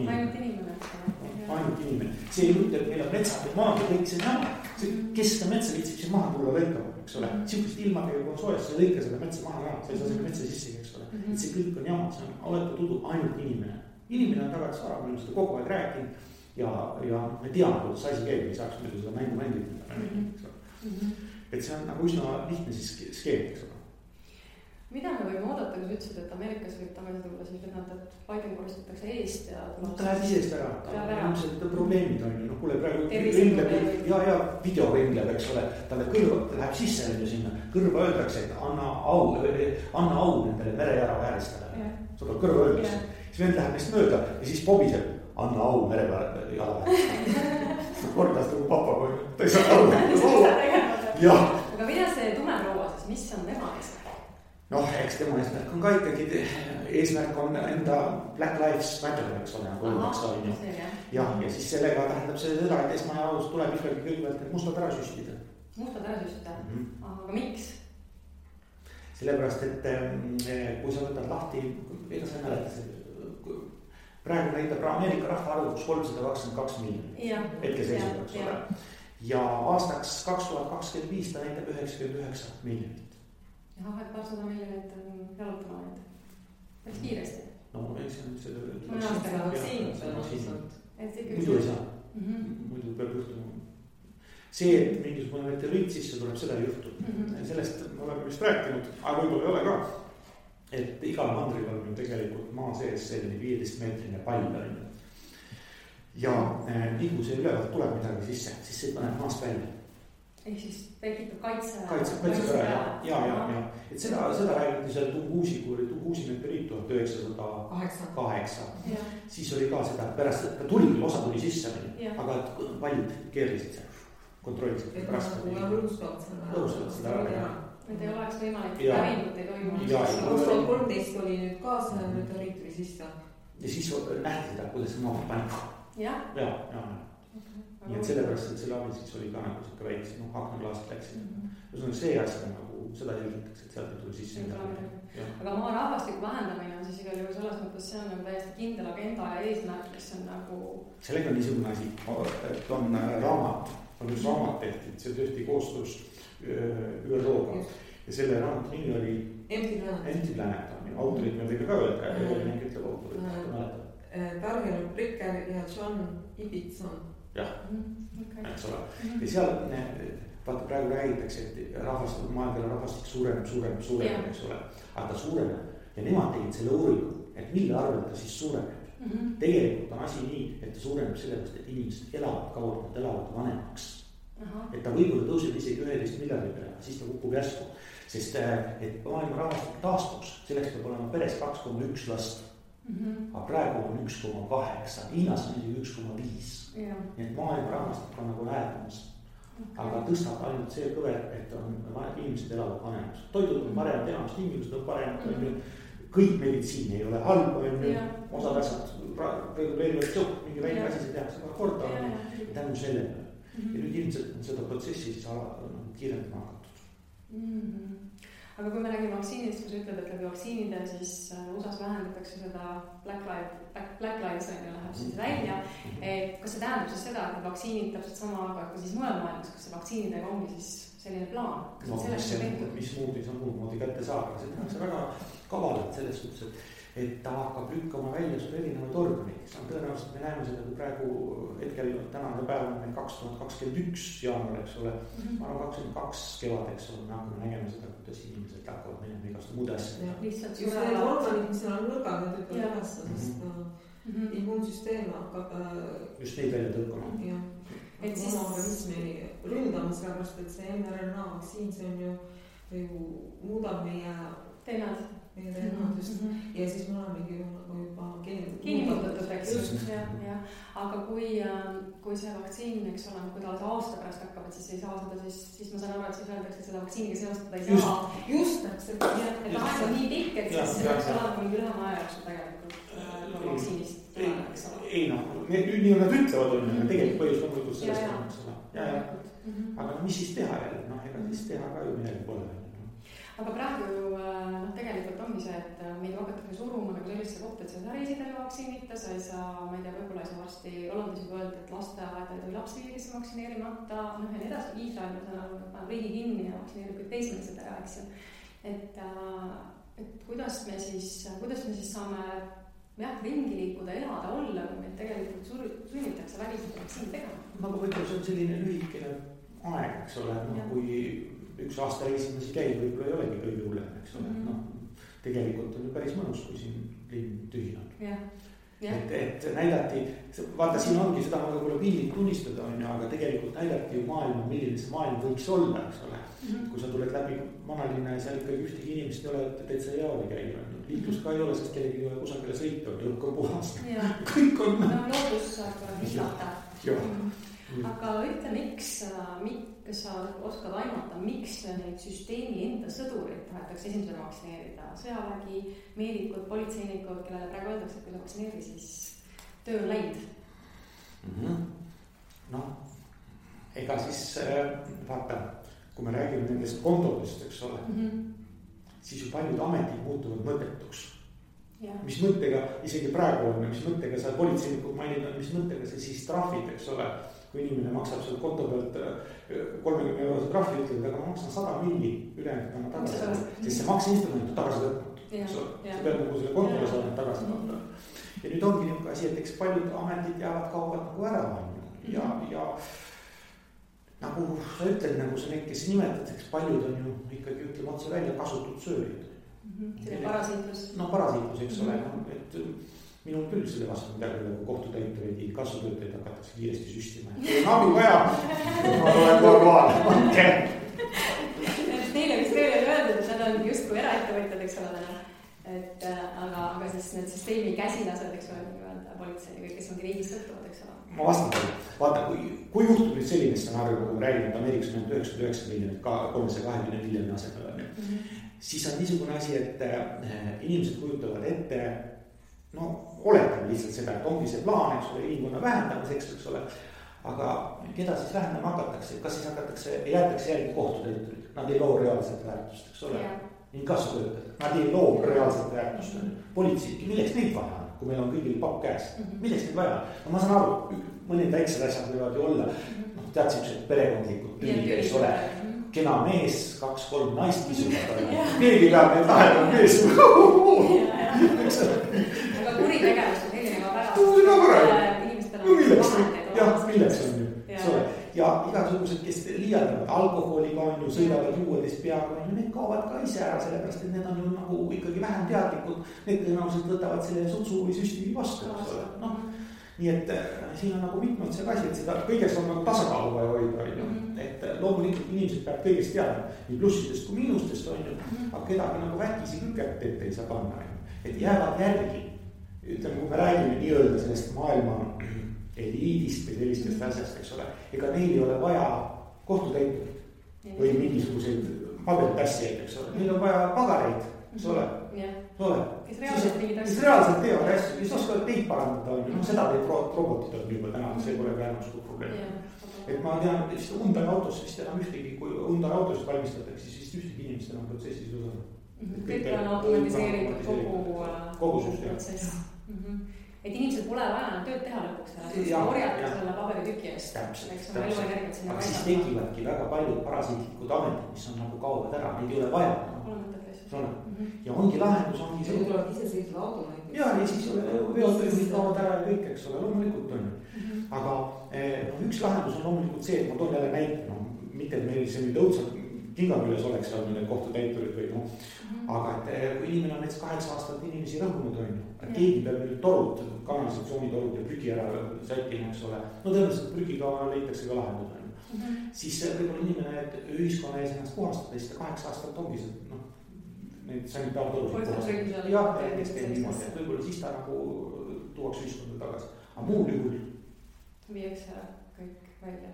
inimene. See ei mõte, et meil on metsad ja maad ja kõik see näma. Kes seda metsa viitsib siin maha tulla lõikama, eks ole. Sihukest ilmadega kui on soojas, sa lõika seda metsa maha ka, sa ei saa selle metsa sisse, eks ole. Et see kõik on jama, see on oletu tudu ainult inimene. Inimene on tagasi vara, me oleme seda kogu aeg rääkinud ja me teame, kuidas asi käib, ei saaks muidu seda mängu mängida. Et see on nagu üsna lihtne siis skeem, eks ole. Mida me võime oodata, kui sa ütlesid, et Ameerikas võib tagasi tulla, siis et Biden koristatakse eest ja... Ta läheb isest ära, ilmselt probleemid on ju, kuule praegu ringleb ja video ringleb, eks ole, talle kõrva läheb sisse sinna, kõrva öeldakse, et anna au nendele merejara vääristele, seda kõrva öeldakse, siis vend läheb neist mööda ja siis pobiseb, anna au merejara vääristele, kordas nagu papa, kui ta ei saa aru. Aga mida see tumeproua siis, mis on tema eest? Noh, eks tema eesmärk on ka ikkagi, eesmärk on enda Black Lives Matter, eks ole, ja siis sellega tähendab see seda, et esmajaos tuleb ikkagi kõigepealt need mustad ära süstida. Mustad ära süstida? Aga miks? Sellepärast, et kui sa võtad lahti, ega sa ei mäleta, praegu näitab Ameerika rahvaarvuks 322 miljonit. Hetke seisuga, eks ole. Ja aastaks 2025 ta näitab 99 miljonit. Jah, et 200 miljonit on jalutama neid. Päris kiiresti. No, ei see on seda... Mõne aastaga vaktsiinid. Muidu ei saa. Muidu peab juhtuma. See, et mingisugune meteoriit sisse tuleb, seda ei juhtu. Sellest me oleme vist rääkinud, aga võib-olla ei ole ka. Et igal mandril on ju tegelikult maa sees selline 15-meetrine pall. Ja nii kui see ülevalt tuleb midagi sisse, siis see paneb maast välja. Ehk siis tekitab kaitse ära, ja. Et seda räägiti seal Tungusi, kui oli Tungusi meteoriit 1908. Siis oli ka seda, pärast ta tuli, osa tuli sisse, aga paljud keerlisid seal, kontrollisid. Et nagu lõustavad seda ära. Et ei oleks võimalik päringut ei toimunud. 2013 oli nüüd ka see meteoriit või siis ta? Ja siis nähti seda, kuidas see maha pani. Ja. nii et sellepärast, et selle abil siis oli ka nagu siuke väikse, aknaklaasid läksid. Ühesõnaga see asi nagu seda jälgitakse, et sealt ei tule sisse. aga maa rahvastiku vähendamine on siis igal juhul selles mõttes, see on nagu täiesti kindel agenda ja eesmärk, mis on nagu. sellega on niisugune asi, et on raamat, on üks raamat tehtud, see tehti koostöös ÜRO-ga ja selle raamatu nimi oli Empty Planet, autorid me võime ka öelda, Evelin ütleb autorid, mäletad. Daniel Bricker ja John Ibbitson. jah, eks ole. ja seal vaata praegu räägitakse, et maailma rahvastik suureneb, eks ole. aga ta suureneb ja nemad tegid selle uuringu, et mille arvel ta siis suureneb. Tegelikult on asi nii, et ta suureneb sellepärast, et inimesed elavad kauem, nad elavad vanemaks. Et ta võib-olla tõuseb isegi 11 miljardi peale, siis ta kukub järsku. Sest et maailma rahvastik taastuks, selleks peab olema peres 2,1 last. Aga praegu on 1,8, Hiinas on isegi 1,5. Nii et maailma rahvastik on nagu häädamas. Aga tõstab ainult see kõver, et inimesed elavad vanemaks. Toidud on paremad, enamast tingimused on paremad. Kõik meditsiin ei ole halb, osad asjad reguleerivad sõpp, mingi väike asi, see tehakse ka korda. Tänu sellele. Ja nüüd ilmselt on seda protsessi siis kiirendama hakatud. Aga kui me räägime vaktsiinidest, kui sa ütled, et läbi vaktsiinide siis USAs vähendatakse seda Black Lives läheb siis välja. Et kas see tähendab siis seda, et vaktsiinid täpselt sama, aga ka siis mujal maailmas, kas see vaktsiinidega ongi siis selline plaan? Mis moodi see on muud moodi kätte saab, aga see tehakse väga kavalalt selles suhtes, et ta hakkab lükkama välja sul erinevaid organid. Tõenäoliselt me näeme seda, kui praegu hetkel tänane päev on meil 2021 jaanuar, eks ole. Ma arvan 22 kevad, eks ole, me hakkame nägema seda, kuidas inimesed hakkavad minema igast muude asjad. Just need organid, mis seal on nõrgad, need ütlevad ülesse, sest immuunsüsteem hakkab just neid välja tõukama. Et oma organismi ründama, sellepärast, et see mRNA vaktsiin, see on ju muudab meie teenad just. Ja siis me olemegi juba geenimutatud, eks just. Aga kui see vaktsiin, eks ole, kui ta aasta pärast hakkab, et siis ei saa seda, siis ma saan aru, et siis öeldakse, et seda vaktsiiniga seostada ei saa. Just täpselt. Et aeg on nii pikk, et siis see peaks olema mingi lühema aja jooksul tegelikult vaktsiinist. Ei nii on nad ütlevad, tegelikult põhjus loomulikult sellest on. Aga mis siis teha jälle? Ega siis teha ka ju midagi pole. Aga praegu tegelikult ongi see, et meid hakatakse suruma nagu sellesse kohta, et sa ei saa reisida vaktsiinita, sa ei saa, ma ei tea, võib-olla ei saa varsti Hollandis juba öelda, et lasteaeda ei tohi lapsi viia, kes on vaktsineerimata, ja nii edasi, Iisrael on saanud riigi kinni ja vaktsineerib kõik teismelised ära, eks ju. Et kuidas me siis saame ringi liikuda, elada, olla, kui meid tegelikult sunnitakse väliselt vaktsiini tegema. Aga võib-olla see on selline lühikene aeg, eks ole, kui üks aasta reisimisi käib, võib-olla ei olegi kõige hullem, eks ole. Tegelikult on ju päris mõnus, kui siin linn tühinab. Et näidati, vaata siin ongi seda ma võib-olla piinlik tunnistada on ju, aga tegelikult näidati ju maailma, milline see maailm võiks olla, eks ole. Kui sa tuled läbi vanalinna ja seal ikkagi ühtegi inimest ei ole, täitsa heaoli käib. Liiklus ka ei ole, sest kellegi ei ole kusagile sõita, õhk on puhas. Kõik on. Loodus saab hislata. Aga ütle, miks sa oskad aimata, miks neid süsteemi enda sõdurid tahetakse esimesena vaktsineerida? Sõjavägi, meedikud, politseinikud, kellele praegu öeldakse, et kui sa vaktsineeri, siis töö on läinud. Ega siis vaata, kui me räägime nendest kontodest, eks ole, siis ju paljud ametid muutuvad mõttetuks. Mis mõttega, isegi praegu on, mis mõttega sa politseinikud mainid, mis mõttega see siis trahvid, eks ole. Kui inimene maksab seal konto pealt 30 eurose trahvi, ütleb, aga ma maksan 100 milli ülejäänud tagasi. Sest see makseinstrument on tagasi võtnud. See peab nagu selle kontole saada tagasi võtta. Ja nüüd ongi niisugune asi, et eks paljud ametid kaovad nagu ära. Ja nagu sa ütled, nagu sa neid, kes nimetad, eks paljud on ju ikkagi ütleme otse välja kasutud sööjad. See parasiitlus. Parasiitlus, eks ole. Et minul küll selle vastu midagi nagu kohtutäitureid, kasvutöötajaid hakatakse kiiresti süstima. Kui on abi vaja, ma olen korvaal. Neile vist veel öeldud, et nad on justkui eraettevõtjad, eks ole täna. Aga siis need süsteemi käsilased, eks ole, politsei või kes ongi riigis sõltuvad, eks ole. Ma vastan teile. Vaata, kui juhtub nüüd selline stsenaarium, nagu me räägime, et Ameerikas on 99 miljonit, 320 miljoni asemel, siis on niisugune asi, et inimesed kujutavad ette, oletame lihtsalt seda, et ongi see plaan, eks ole, inimkonna vähendamiseks, eks ole, aga keda siis vähendama hakatakse, kas siis jäetakse järgi kohtutäiturid, nad ei loo reaalset väärtust, eks ole. Inkassotöötajad, nad ei loo reaalset väärtust, politseid, milleks neid vaja on, kui meil on kõigil papp käes, milleks neid vaja on? No ma saan aru, mõned väiksed asjad võivad ju olla, tead siuksed perekondlikud tülid, eks ole. Kena mees, 2-3 naist kisuvad, keegi peab neid lahendama mees. Aga kuritegevus on selline ka väga. No milleks on ju, eks ole. Ja igasugused, kes liialdavad alkoholiga on ju, sõidavad juuedest peaga, need kaovad ka ise ära, sellepärast et need on ju nagu ikkagi vähem teadlikud. Need tõenäoliselt võtavad selle sutsu või süsti vastu, eks ole. No, nii et siin on nagu mitmed see asi, et seda kõigest on nagu tasakaalu vaja hoida, et loomulikult inimesed peab kõigest teadma, nii plussidest kui miinustest on ju, aga kedagi nagu väkisi küket ette ei saa panna, et jäävad järgi. Ütleme, kui me räägime nii-öelda sellest maailma eliidist või sellistest asjast, eks ole, ega neil ei ole vaja kohtutäiturit või mingisuguseid paberitassijaid, eks ole, neil on vaja pagareid, eks ole. Kes reaalselt teevad asju, kes oskavad teid parandada, no seda teeb robotid on juba täna, see pole ka enam suur probleem. Et ma tean, et Hyundai autos vist enam ühtegi, kui Hyundai autosid valmistatakse, siis vist ühtegi inimest enam protsessis osana. Kõik on automatiseeritud kogu protsess. Et inimesed pole vaja enam tööd teha lõpuks ära, siis korjata selle paberitüki eest. Täpselt. Aga siis tekivadki väga paljud parasiitlikud ametid, mis on nagu kaovad ära, neid ei ole vaja. Ja ongi lahendus, ongi see. Tulevad ise seisvad automaid. Ja siis veotöösid kaovad ära ja kõik, eks ole, loomulikult on. Aga üks lahendus on loomulikult see, et ma toon jälle näite, mitte et meil see nüüd õudselt kingaküles oleks olnud need kohtutäiturid või aga et kui inimene on näiteks 8 aastat inimesi rõhunud on ju, et keegi peab nüüd torud, kanalisatsioonitorud ja prügi ära sättima, eks ole. No tõenäoliselt prügiga leitakse ka lahendus on ju. Siis võib-olla inimene, et ühiskonna ees ennast puhastada, siis 8 aastat ongi see, neid sanitaartorud puhastada. Jah, kes teeb niimoodi, et võib-olla siis ta nagu tuuaks ühiskonda tagasi. Aga muul juhul viiakse kõik välja.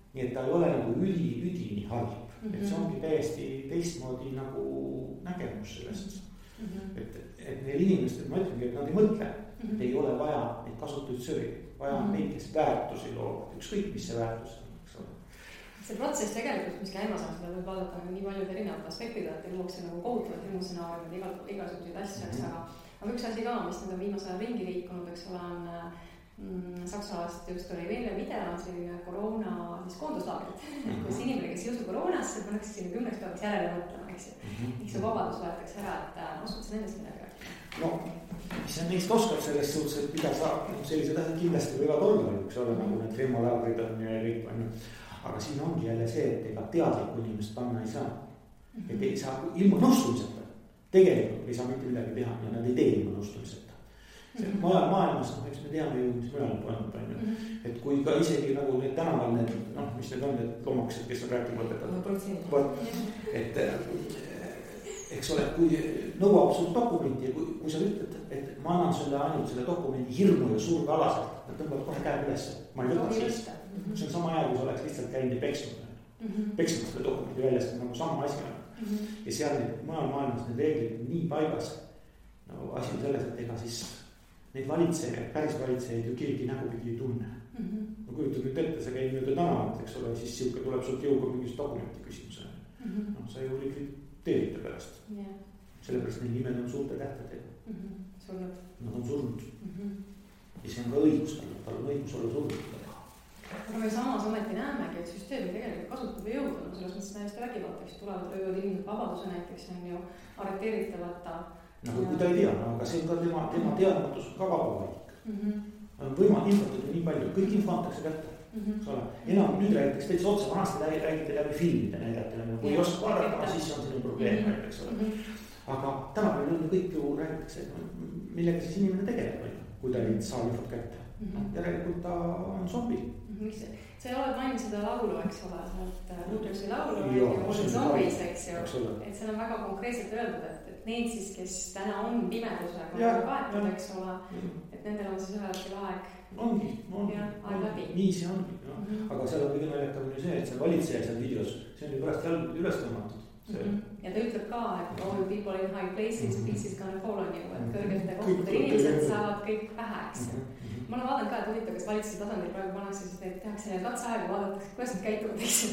Nii et ta ei ole nagu üdini halb, et see ongi täiesti teistmoodi nagu nägemus sellest. Et neil inimestel, ma ütlengi, et nad ei mõtle, et ei ole vaja neid kasutatud söögi, vaja on neid, kes väärtusi loovad, ükskõik mis see väärtus on, eks ole. See protsess tegelikult, mis käimas on, seda võib vaadata nii paljud erinevad aspektid, et luuakse nagu kohutavad emotsionaariumid, igasuguseid asju, aga üks asi ka, mis nüüd on viimase ajal ringi liikunud, eks ole, on Saksalast just oli veel video, on selline koroona koonduslaagrid, kus inimene, kes ei usu koroonasse, pannakse sinna 10 päevaks järele mõtlema, eks ju. Miks see vabadus võetakse ära, et oskad sa nendest midagi rääkida? No, mis sa neist oskab selles suhtes, et mida sa sellised asjad kindlasti võivad olla, üks ole nagu need femolaagrid on ja kõik on. Aga siin ongi jälle see, et ega teadlikku inimest panna ei saa. Et ei saa ilma nõustumiseta. Tegelikult ei saa mitte midagi teha ja nad ei tee ilma nõustumiseta. Mujal maailmas, eks me teame ju, mis mujal toimub, on ju. Et kui ka isegi nagu need tänaval need, mis need on, need loomakesed, kes on rääkima õpetanud. Et eks ole, kui nõuab sul dokumenti ja kui sa ütled, et ma annan sulle ainult selle dokumendi hirmu ja surve alaselt, nad tõmbavad kohe käed üles, ma ei võta siis. See on sama aja, kui sa oleks lihtsalt käinud ja peksnud selle dokumendi väljas, nagu sama asi on. Ja seal mujal maailmas need reeglid nii paigas. No asi on selles, et ega siis neid valitsejaid, päris valitsejaid ju keegi nägupidi ei tunne. No kujutad nüüd ette, sa käid mööda tänavat, eks ole, siis siuke tuleb sult jõuga mingis dokumenti küsimusele. No sa ju likvideerite pärast. Sellepärast need nimed on suurte tähtedega. Surnud. Nad on surnud. Ja see on ka õigus, tal on õigus olla surnud. Aga me samas ometi näemegi, et süsteemi tegelikult kasutab ja jõuda. No selles mõttes täiesti vägivalda, tulevad röövad inimesed vabaduse näiteks on ju arreteeritavata. No kui ta ei tea, aga see on ka tema teadmatus ka vabavalik. On võimalik infotada nii palju, kõik info antakse kätte. Enam nüüd räägitakse täitsa otsa, vanasti räägite läbi filmide näidati, kui ei oska vaadata, siis on sinu probleem. Aga tänapäeval on kõik ju räägitakse, millega siis inimene tegeleb, kui ta ei saa infot kätte. Järelikult ta on zombi. Sa ei ole maininud seda laulu, eks ole, Rudolfi laulu ja olid zombis, eks ju. Et see on väga konkreetselt öeldud, et need siis, kes täna on pimedusega kaetud, eks ole, et nendel on siis ühelgi aeg. Ongi. Aeg läbi. Nii see ongi. Aga seal on kõige naljakam ju see, et see valitseja seal videos, see on ju pärast jalg üles tõmmatud. Ja ta ütleb ka, et all people in high places, peace is gonna fall on you, et kõrgete kohtadel inimesed saavad kõik pähe, eks ju. Ma olen vaadanud ka, et huvitav, kas valitsuse tasandil praegu pannakse, sest et tehakse neid katseaega, vaadatakse, kuidas nad käituvad, eks ju.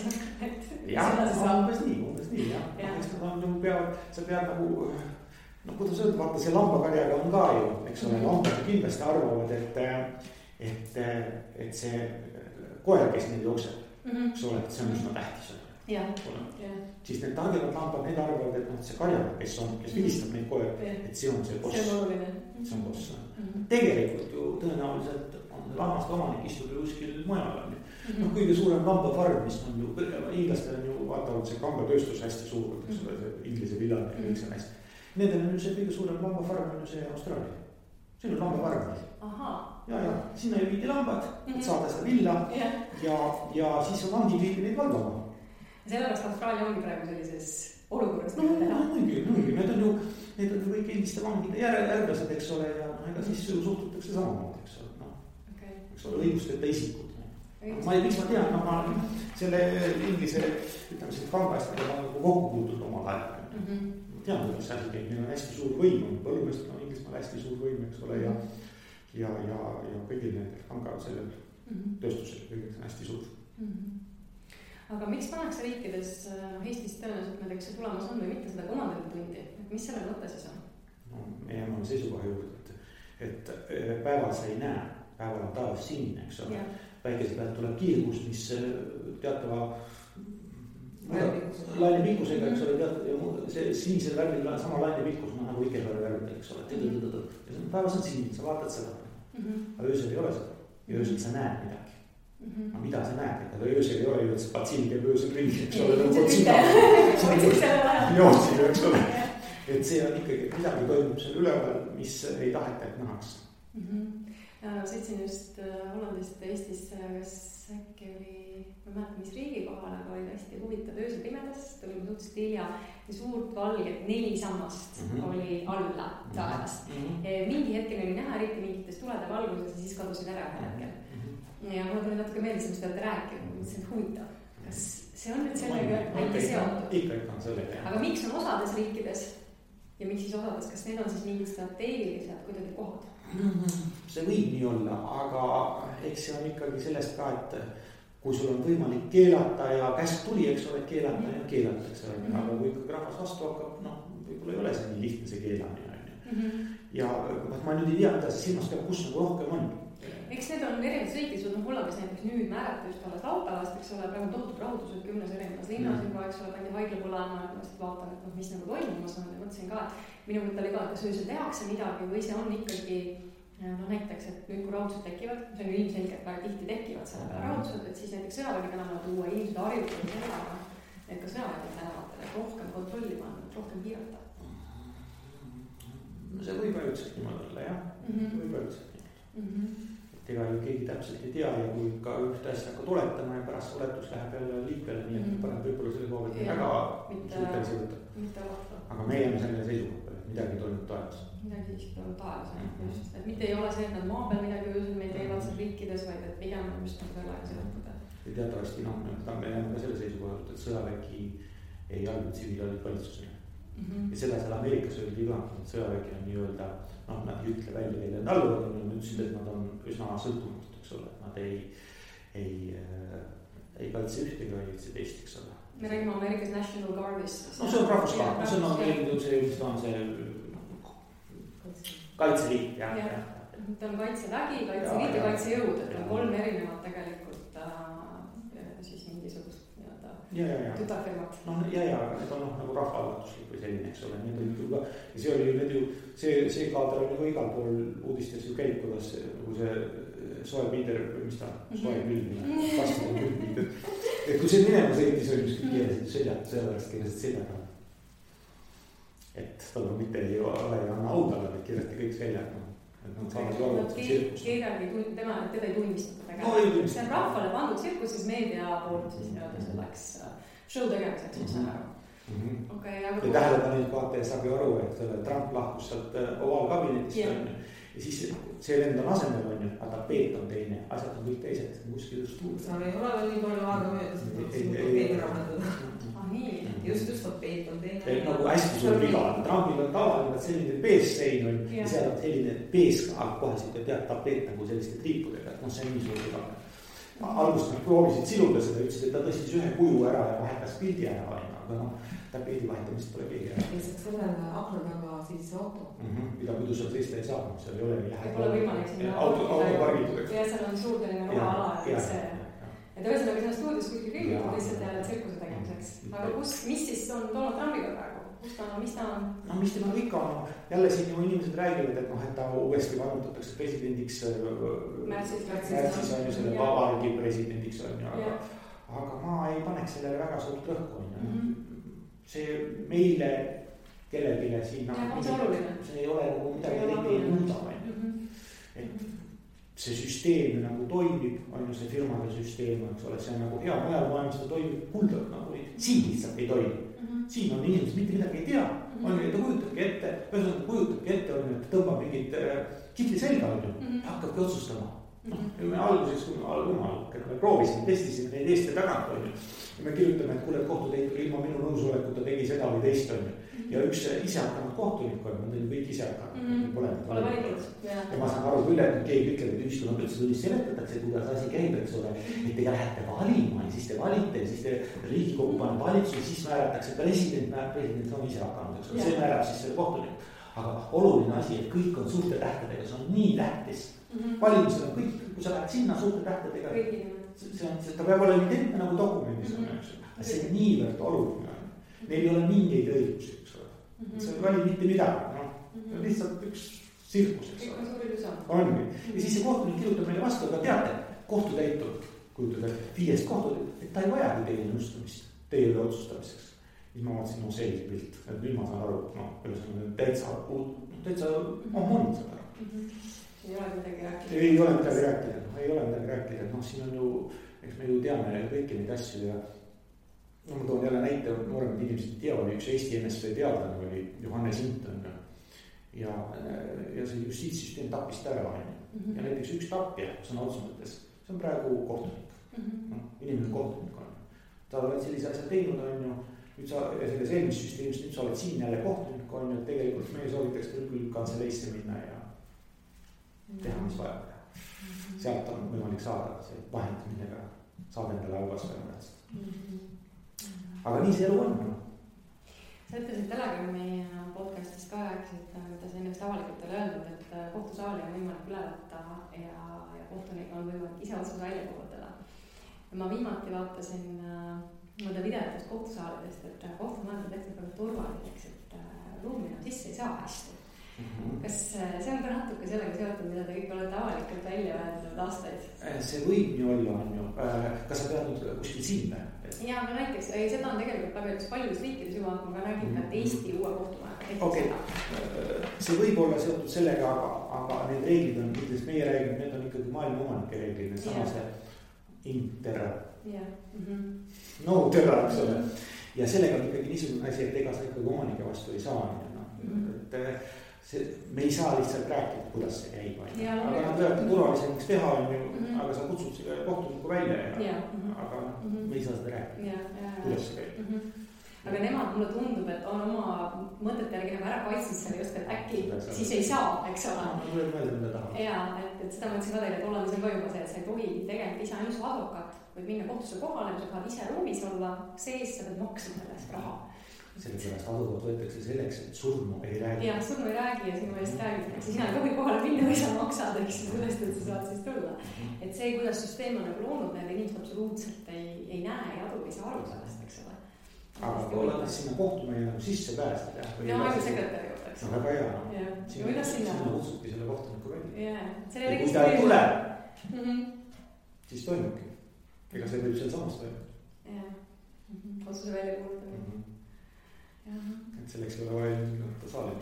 jah, umbes nii, jah. Eks nad on nagu peavad, sa pead nagu, no kuidas öelda, vaata see lambakarjaga on ka ju, eks ole, lambad kindlasti arvavad, et see koer, kes neid jookseb, eks ole, et see on üsna tähtis. Siis need targemad lambad, need arvavad, et see karjaga, kes vilistab neid koer, et see on see boss. See on boss. Tegelikult ju tõenäoliselt on lammaste omanik istub ju kuskil mujal. No kõige suurem lambafarm, mis on ju, inglastel on ju vaatavalt see kambatööstus hästi suur, see inglise villane ja kõik see hästi. Nendel on ju see kõige suurem lambafarm on ju see Austraalia. See on lambafarm. Ja, sinna ju viidi lambad, et saada seda villa ja siis on vangi viidi neid valvama. Sellepärast Austraalia ongi praegu sellises olukorras. No, muidugi, need on ju kõik endiste vangide järglased, eks ole, ja ega siis ju suhtutakse samamoodi, eks ole, eks ole, õigusteta isikud. Ma ei tean, ma selle inglise, ütleme selle kambastada nagu kokku puutud omal ajal. Tean, kuidas see asi käib, neil on hästi suur võim, põllumeestel on Inglismaal hästi suur võim, eks ole, ja kõigil nendel kanga sellel tööstusel kõigil on hästi suur. Aga miks pannakse riikides, Eestis tõenäoliselt näiteks see tulemas on või mitte seda komandantitundi, et mis selle mõte siis on? No, me jääme seisukoha juurde, et päeval sa ei näe, päeval on taevas sinine, eks ole. Päikese pealt tuleb kiirgust, mis teatava lainepikkusega, eks ole, see sinisel värvil on sama lainepikkus nagu Ikebära värvil, eks ole. Päevas on sinine, sa vaatad seda, aga öösel ei ole seda ja öösel sa näed midagi. Aga mida sa näed, aga öösel ei ole ju, et see patsiin käib öösel ringi, eks ole, jootsib, eks ole. Et see on ikkagi, midagi toimub seal üleval, mis ei taheta, et nähaks. Sõitsin just Hollandist Eestisse, kas äkki oli, ma mäletan, mis riigi kohal, aga oli hästi huvitav öösel pimedas, tulime suhteliselt hilja ja suurt valget 4 sammast oli alla taevast. Mingi hetkel oli näha eriti mingites tulede valguses ja siis kadusid ära ühel hetkel. Ja mulle tuli natuke meeldis, mis te olete rääkinud, mõtlesin, et huvitav, kas see on nüüd sellega äkki seotud? Ikka on sellega. Aga miks on osades riikides ja miks siis osades, kas need on siis mingid strateegilised kuidagi kohad? See võib nii olla, aga eks see on ikkagi sellest ka, et kui sul on võimalik keelata ja käsk tuli, eks ole, keelata ja keelatakse. Aga kui ikkagi rahvas vastu hakkab, võib-olla ei ole see nii lihtne see keelamine. Ja ma nüüd ei tea, mida see silmas peab, kus nagu rohkem on. Eks need on erinevad sõitis, Hollandis näiteks nüüd määrati just alles laupäevast, eks ole, praegu tohutud rahutused 10 erinevates linnas juba, eks ole, pandi haiglapõlana, et vaatan, et mis nagu toimumas on ja mõtlesin ka, et minu mõte oli ka, et kas öösel tehakse midagi või see on ikkagi, näiteks, et nüüd kui rahutused tekivad, see on ju ilmselgelt väga tihti tekivad selle peale rahutused, et siis näiteks sõjavägi tänavale tuua, inimesed harjutavad sellega, et ka sõjavägi tänavatel, et rohkem kontrolli panna, rohkem piirata. See võib ajutselt niimoodi olla, jah, võib ajutselt niimoodi. Ega ju keegi täpselt ei tea ja kui ka ühte asja hakkad oletama ja pärast oletus läheb jälle liikvele, nii et paneb võib-olla selle koha pealt väga suhtelisi võtta. Aga me jääme selle seisukoha, et midagi toimub taevas. Midagi siiski toimub taevas, just. Et mitte ei ole see, et nad maa peal midagi öösel meil teevad seal riikides, vaid et pigem on just nagu sellega seotud. Ja teatavasti, me jääme ka selle seisukoha, et sõjavägi ei allu tsiviilvalitsusele. Ja seda seal Ameerikas öeldi ka, et sõjavägi on nii-öelda, nad ei ütle välja neile alluvad, nad ütlesid, et nad on üsna sõltumatud, eks ole, nad ei kaitse ühtegi, vaid üldse teist, eks ole. Me räägime Ameerikas National Guardist. No see on rahvusvaard, see on see kaitseliit, jah. Ta on kaitsevägi, kaitseliit ja kaitsejõud, et on 3 erinevat tegelikult siis mingisugust tütarfirmat. Ja, need on nagu rahvaalgatuslik või selline, eks ole, need olid ju ka, ja see oli nüüd ju, see kaader on ju igal pool uudistes ju käib, kuidas nagu see soe piider, mis ta, soe külmi, vastane külmi, et kui see minema sõitis, oli miski keelesid seljatud, sellepärast keelesid seljaga. Et tal on mitte ei ole ja anna audale, et keeleti kõik seljaga. Teda ei tunnistata tegelikult. See on rahvale pandud tsirkus, siis meedia poolt siis selleks show tegemiseks, mis on ära. Ja tähelepanelik vaataja saab ju aru, et Trump lahkus sealt ovaalkabinetist ja siis see lend on asemel on ju, aga tapeet on teine, asjad on kõik teised, kuskil just tuul. Seal ei ole veel nii palju aega mööda, just tapeet on teine. Et nagu hästi suur viga, trambil on tavaline selline peessein on ja seal on selline pees, kohe siit tead tapeet nagu selliste triipudega, et noh, see on nii suur viga. Alguses nad proovisid siluda seda, ütlesid, et ta tõstis ühe kuju ära ja vahetas pildi ära, aga noh, tapeedi vahetamist pole keegi ära. Lihtsalt sellele akna taga siis auto. Mida muidu seal seista ei saa, seal ei ole nii lähedal. Pole võimalik sinna autopargitud. Ja seal on suur selline roha ala, et ühesõnaga sinna stuudios kuskil kõigitud lihtsalt jälle tsirkuse tegemiseks. Aga mis siis on Donald Trumpiga praegu? Mis ta on? No mis tema ikka on, jälle siin ju inimesed räägivad, et noh, et ta uuesti vannutatakse presidendiks märtsis on ju selle vabariigi presidendiks on ju, aga ma ei paneks sellele väga suurt rõhku on ju. See meile kellegile siin see ei ole nagu midagi ei muuda on ju. Et see süsteem nagu toimib, on ju see firmade süsteem, eks ole, see on nagu hea, mujal maailmas ta toimib kuldalt nagu nii, siin lihtsalt ei toimi. Siin on inimesed mitte midagi ei tea, on ju, ta kujutabki ette, ühesõnaga kujutabki ette, on ju, et tõmbab mingit kitli selga on ju, ja hakkabki otsustama. Me alguses, kui me proovisime, testisime neid eest ja tagant on ju, ja me kirjutame, et kuule, kohtutäitur ilma minu nõusoleku ta tegi seda või teist on ju. Ja üks ise hakanud kohtunik on, nad olid kõik ise hakanud, pole valitud. Ja ma saan aru küll, et keegi ütleb, et ühiskonnad üldse tunnis seletatakse, kuidas asi käib, eks ole, et te lähete valima ja siis te valite ja siis te Riigikogu paneb valitsus ja siis määratakse president on ise hakanud, eks ole, see määrab siis selle kohtunik. Aga oluline asi, et kõik on suurte tähtedega, see on nii tähtis. Valimised on kõik, kui sa lähed sinna suurte tähtedega, ta peab olema identne nagu dokumendis on, eks ole, see on niivõrd oluline. Neil ei ole mingeid õigusi, eks ole. See ei vali mitte midagi, noh. See on lihtsalt üks sirkus, eks ole. Ongi. Ja siis see kohtunik kirjutab meile vastu, aga teate, kohtutäitur, kujutada 5 kohtutäitur, et ta ei vajagi teie nõustamist, teie otsustamiseks. Siis ma vaatasin, no selge pilt, et nüüd ma saan aru, noh, täitsa on mõnid seda ära. Ei ole midagi rääkida. Ei ole midagi rääkida, noh, siin on ju, eks me ju teame kõiki neid asju ja no ma toon jälle näite, nooremad inimesed teavad, üks Eesti NSV teadlane oli Johannes Hinton ja see justiitssüsteem tappis ta ära ja näiteks üks tapja sõna otsa mõttes, see on praegu kohtunik, inimene kohtunik on. Ta oled sellise asja teinud on ju, nüüd sa selles eelmis süsteemis, nüüd sa oled siin jälle kohtunik on ju, et tegelikult meie soovitaks küll kantseleisse minna ja teha mis vaja. Sealt on võimalik saada see vahend, millega saab endale halvast väga. Aga nii see elu on. Sa ütlesid Telegrami podcastis ka rääkisid, mida sa ennast avalikult oli öelnud, et kohtusaali on võimalik üle võtta ja kohtunik on võimalik ise otsus välja kuulutada. Ma viimati vaatasin mõnda videotest kohtusaalidest, et kohtumajad on tehtud väga turvaliseks, et ruumi sisse ei saa hästi. Kas see on ka natuke sellega seotud, mida te kõik olete avalikult välja öelnud aastaid? See võib nii olla, on ju. Kas sa pead nüüd kuskil siin? Jaa, aga näiteks, seda on tegelikult paljudes riikides juba, ma räägin, et Eesti uue kohtumaja. Okay. See võib olla seotud sellega, aga need reeglid on, kuidas meie räägime, need on ikkagi maailma omanike reeglid, need samase interra. No terra, eks ole. Ja sellega on ikkagi niisugune asi, et ega sa ikkagi omanike vastu ei saa. Me ei saa lihtsalt rääkida, kuidas see käib. Aga nad võivad turvalisemaks teha, aga sa kutsud selle kohtuniku välja, aga me ei saa seda rääkida, kuidas see käib. Aga nemad mulle tundub, et on oma mõtete järgi ära kaitsnud selle just, et äkki siis ei saa, eks ole. Ja, et seda mõtlesin ka teile, et Hollandis on ka juba see, et sa ei tohi tegelikult ise ainult advokaat, võid minna kohtusse kohale, sa tahad ise ruumis olla, sees sa pead maksma sellest raha. Sellepärast advokaat võetakse selleks, et surnu ei räägi. Jah, surnu ei räägi ja sinu eest räägitakse. Sina ei tohi kohale minna või sa maksad, eks sellest, et sa saad siis tulla. Et see, kuidas süsteem on nagu loonud, need inimesed absoluutselt ei näe ja adu ei saa aru sellest, eks ole. Aga kui oled sinna kohtumeile nagu sisse pääsed. Ja aegu sekretäri juurde, eks ole. Väga hea. Sinna kutsubki selle kohtuniku välja. Ja kui ta ei tule, siis toimubki. Ega see võib seal samas toimub. Jah, otsuse välja kuulutamine. Et selleks ei ole vaja ilmselt saali.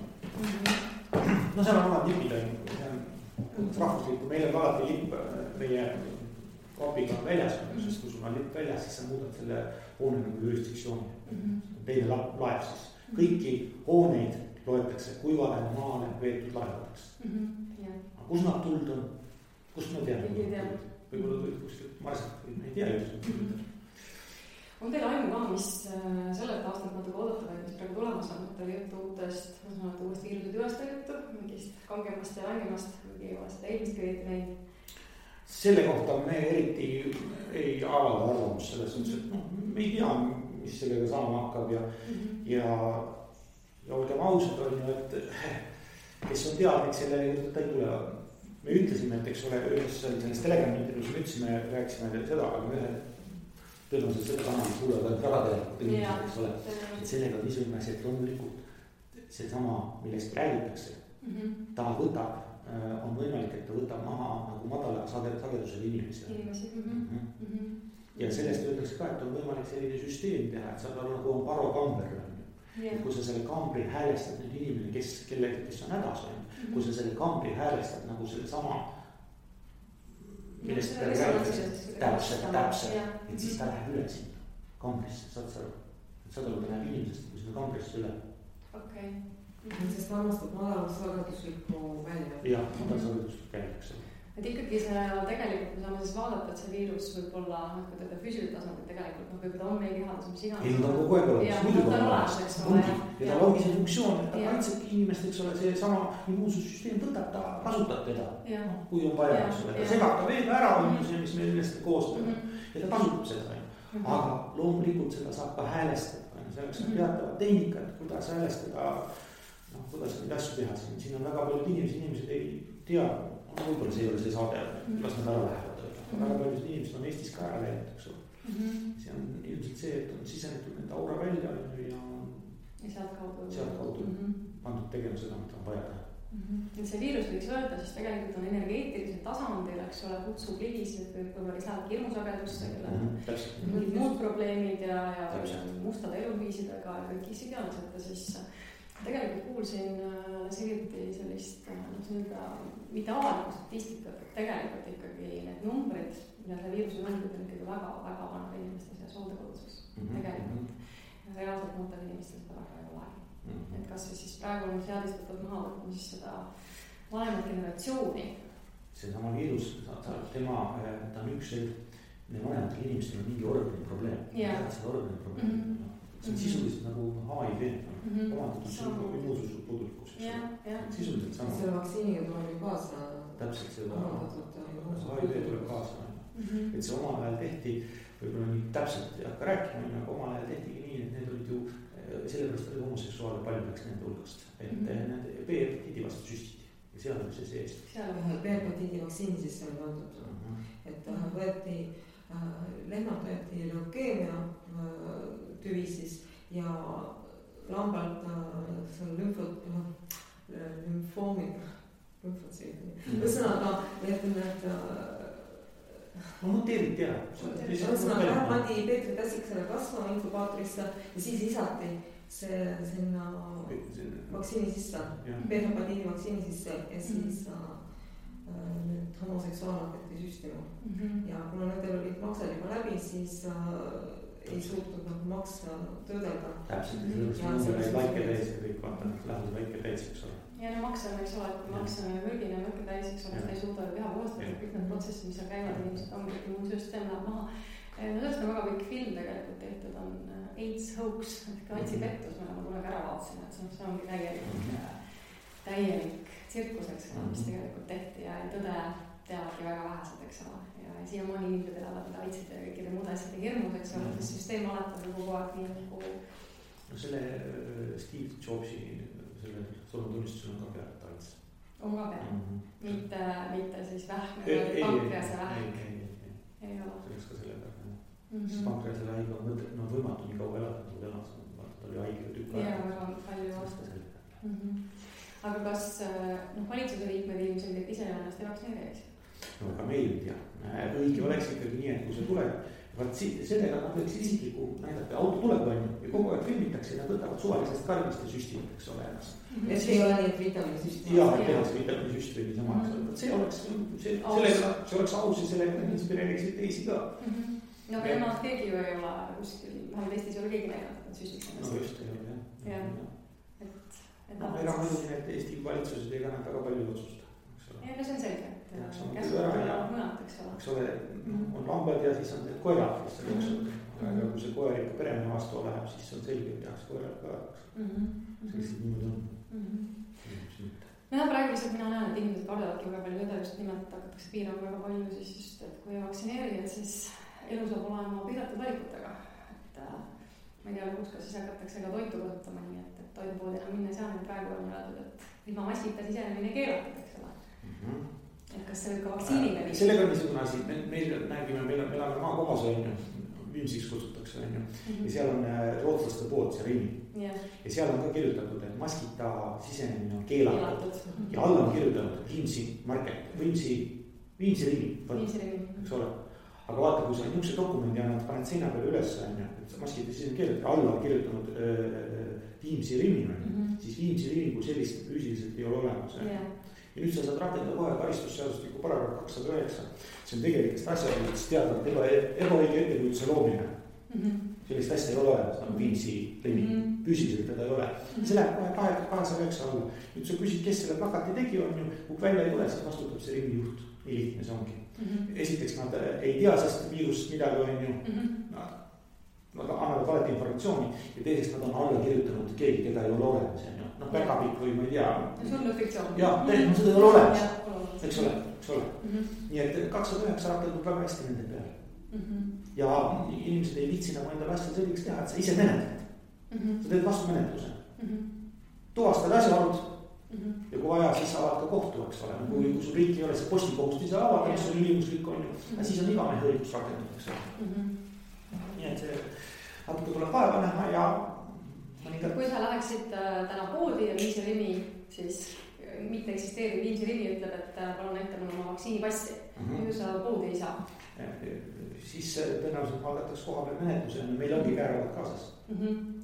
No seal on omad lipid, see on rahvuslikku, meil on alati lipp meie kapiga väljas, sest kui sul on lipp väljas, siis sa muudad selle hoone nagu jurisdiktsiooni. Teine laev siis. Kõiki hooneid loetakse kuivale maale veetud laevadeks. Aga kus nad tuld on? Kust me teame? Võib-olla tulid kuskilt marsalt või me ei tea just. on teil aimu ka, mis sellelt aastalt natuke oodata või mis praegu tulemas on, et oli juttu uutest, ma saan öelda uuest viiruse tüvest oli juttu, mingist kangemast ja langemast, kuigi ei ole seda eelmist kõigiti näinud. Selle kohta me eriti ei avalda arvamust selles suhtes, et me ei tea, mis sellega saama hakkab ja olgem ausad, on ju, et kes on teadlik, selle juurde ta ei tule. Me ütlesime, et eks ole, ühes selles Telegrami intervjuus me ütlesime, rääkisime seda, aga me tõenäoliselt seda kanalist kuulevad ainult väga teadlikud inimesed, eks ole. Et sellega on niisugune asi, et loomulikult seesama, millest räägitakse, ta võtab, on võimalik, et ta võtab maha nagu madala sagedusel inimesi. Ja sellest öeldakse ka, et on võimalik selline süsteem teha, et saab aru nagu on parokamber. Et kui sa selle kambri häälestad nüüd inimene, kes on hädas, kui sa selle kambri häälestad nagu selle sama, millest ta räägitakse, täpselt, et siis ta läheb üle sinna kambrisse, saad sa aru? Saad aru, ta läheb inimesest kui sinna kambrisse üle. Okei. Sest armastab madalsageduslikku välja. Jah, madalsageduslikku välja, eks ole. Et ikkagi see tegelikult me saame siis vaadata, et see viirus võib olla, kui teda füüsilitasandil tegelikult, võib ta on meil kehades, mis iganes. Ei, ta on kogu aeg olemas, muidugi on olemas. Ja tal ongi see funktsioon, et ta kaitsebki inimest, eks ole, see sama immuunsussüsteem võtab, ta kasutab teda, kui on vaja, eks ole. Ta segab ta veega ära, see, mis meil millest koostöö, ja ta kasutab seda. Aga loomulikult seda saab ka häälestada. Selleks on teatavad tehnikad, kuidas häälestada, kuidas neid asju teha. Siin on väga paljud inimesed ei tea, võib-olla see ei ole see saade, las nad ära lähevad. Väga paljud inimesed on Eestis ka ära läinud, eks ole. See on ilmselt see, et on sisenetud nende aura välja ja sealt kaudu pandud tegema seda, mida on vaja teha. Et see viirus võiks öelda, siis tegelikult on energeetilisel tasandil, eks ole, kutsub ligisid, võib-olla lisavad hirmusagedusse, mingid muud probleemid ja mustade eluviisidega ja kõik isegi on, et siis tegelikult kuulsin hiljuti sellist mitte avalikku statistikat, et tegelikult ikkagi need numbrid, mida see viiruse numbrid on ikkagi väga vanade inimeste seas hooldekoduses. Tegelikult reaalselt noortel inimestel seda väga ei ole. Et kas siis praegu on seadistatud maha võtma siis seda vanemat generatsiooni? Seesama viirus, ta on üks vanematel inimestel on mingi organi probleem. Seda organi probleem. See on sisuliselt nagu HIV, omandatud immuunsus puudulikkus. Sisuliselt sama. Selle vaktsiiniga tuleb ju kaasa. Täpselt seda HIV tuleb kaasa. Et see omal ajal tehti, võib-olla nii täpselt ei hakka rääkima, aga omal ajal tehtigi nii, et need olid ju, sellepärast oli homoseksuaale palju läks nende hulgast. Et need B-hepatiidi vastu süstiti ja seal oli see sees. B-hepatiidi vaktsiini sisse oli pandud. Et võeti, lehmad võeti leukeemia tüvi siis ja lambalt lümfoomid, ühesõnaga, et need muteeriti ära. Ühesõnaga, pandi Peetri Tässiksele kasvama inkubaatorisse ja siis lisati see sinna vaktsiini sisse, B-hepatiidi vaktsiini sisse ja siis nüüd homoseksuaal hakati süstima. Ja kuna nendel olid maksed juba läbi, siis ei suutnud nagu maksa töödelda. Täpselt, sellepärast väike täis ja kõik vaatavad, lähevad väike täis, eks ole. Ja makse on, eks ole, et kui makse on mürgine ja mürke täis, eks ole, ta ei suuda ju keha puhastada, kõik need protsessid, mis seal käivad, inimesed ongi, immuunsüsteem läheb maha. Sellest on väga kõik film tegelikult tehtud, on AIDS hoax, et AIDS-i pettus, mida ma kunagi ära vaatasin, et see ongi täielik tsirkus, eks ole, mis tegelikult tehti ja tõde teavadki väga vähesed, eks ole. Ja siiamaani inimesed elavad AIDS-id ja kõikide muude asjade hirmus, eks ole, sest süsteem alatab kogu aeg nii nagu... No selle Steve Jobsi, selle surmatunnistusel on ka pealt AIDS. On ka pealt? Mitte siis vähk, pankrease vähk? Ei ole. Selleks ka selle pealt. Sest pankrease vähk on võimatu nii kaua elada, kui elas. Ta oli haige tükk aega. Jaa, väga palju vastu. Aga kas valitsuse liikmed ilmselt ise ennast ei vaktsineeriks? No aga meil ei tea. Õige oleks ikkagi nii, et kui see tuleb, vaat sellega nad võiks isikliku näidata, auto tuleb on ja kogu aeg filmitakse ja nad võtavad suvalisest karmist ja süstivad, eks ole ennast. Et ei ole nii, et vitaminisüst. Jaa, et tehas vitaminisüst või niisama, eks ole. See oleks aus ja sellega inspireeriksid teisi ka. No aga nemad keegi ju ei ole kuskil, vähemalt Eestis ei ole keegi näidanud, et nad süstiks ennast. No just, ei ole, jah. Ega muidugi need Eesti valitsused ei kannata väga palju otsusta. Ja no see on selge, et käsud tulevad mõnad, eks ole. On lambad ja siis on need koerad, kes seal jooksevad. aga kui see koer ikka peremehe vastu läheb, siis on selge, et tehakse koerale kõvaks. See lihtsalt niimoodi on. Jah, praegu lihtsalt mina näen, et inimesed kardavadki väga palju seda just nimelt hakatakse piirama väga palju siis just, et kui vaktsineerida, siis elu saab olema piiratud valikutega. Et ma ei tea, lõpuks ka siis hakatakse ka toitu kasutama nii, et toidupoodi enam minna ei saa, nüüd praegu on öeldud, et ilma maskita sisenemine keelatud, eks ole. Et kas see võib ka vaktsiiniga nii? Sellega on niisugune asi, meil nägime, meil elame maakohas on ju, Viimsiks kutsutakse on ju, ja seal on rootslaste pood, see Rimi. Ja seal on ka kirjutatud, et maskita sisenemine on keelatud. Ja alla on kirjutatud Viimsi market, Viimsi Rimi, eks ole. Aga vaata, kui sa niisuguse dokumendi annad, paned seina peale üles, et maskita sisenemine keelatud, alla on kirjutanud Viimsi Rimi, siis Viimsi Rimi kui sellist füüsiliselt ei ole olemas. Ja nüüd sa saad rakendada kohe karistusseadustiku paragrahv 209. See on tegelikult asjadest teadvat ebaõige ettekujutuse loomine. Sellist asja ei ole olemas, nagu Viimsi Rimi. Füüsiliselt teda ei ole. See läheb kohe 209 alla. Nüüd sa küsid, kes selle plakati tegi on ju, kui välja ei tule, siis vastutab see Rimi juht. Nii lihtne see ongi. Esiteks nad ei tea sest viirust midagi on ju. Nad annavad valeti informatsiooni ja teiseks nad on alla kirjutanud keegi, keda ei ole olemas. Päkapikk või ma ei tea. See on fiktsioon. Jah, seda ei ole olemas. Eks ole. Nii et 209 rakendub väga hästi nende peale. Ja inimesed ei viitsi nagu endale asja selliks teha, et sa ise menetled. Sa teed vastu menetluse. Tuvastad asjaolud ja kui vaja, siis saavad ka kohtu, eks ole. Kui sul riik ei ole see postikohust ise avada, mis on ülimuslik on ju, siis on iga mehe õigus rakendatakse. Nii et see natuke tuleb vaeva näha ja kui sa läheksid täna poodi ja Viimsi Rimi, siis mitte eksisteeriv Viimsi Rimi ütleb, et palun näita mulle oma vaktsiinipassi. Kui sa poodi ei saa? Siis tõenäoliselt valdatakse koha peal menetluse ja meil ongi kääravad kaasas.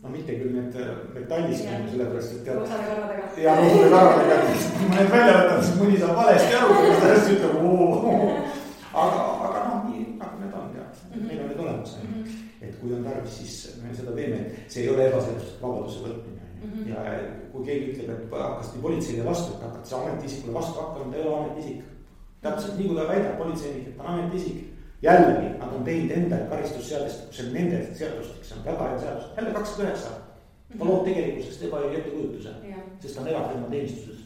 No mitte küll need metallist, sellepärast, et roosade karvadega. Ja roosade karvadega. Kui ma need välja võtan, siis mõni saab valesti aru, kui ta hästi ütleb. Aga nii nagu need on, meil on need olemas. Et kui on tarvis, siis me seda teeme, et see ei ole ebaseaduslik vabaduse võtmine. Ja kui keegi ütleb, et hakkas nii politseile vastu, et hakkad see ametiisikule vastu hakkama, ta ei ole ametiisik. Täpselt nii, kui ta väidab politseinik, et ta on ametiisik. Jällegi, nad on teinud enda karistusseadustik, see on nende seadustik, see on väga hea seadus. Jälle 209. Ta loob tegelikkusest ebaõige ettekujutuse, sest ta on erakonna teenistuses.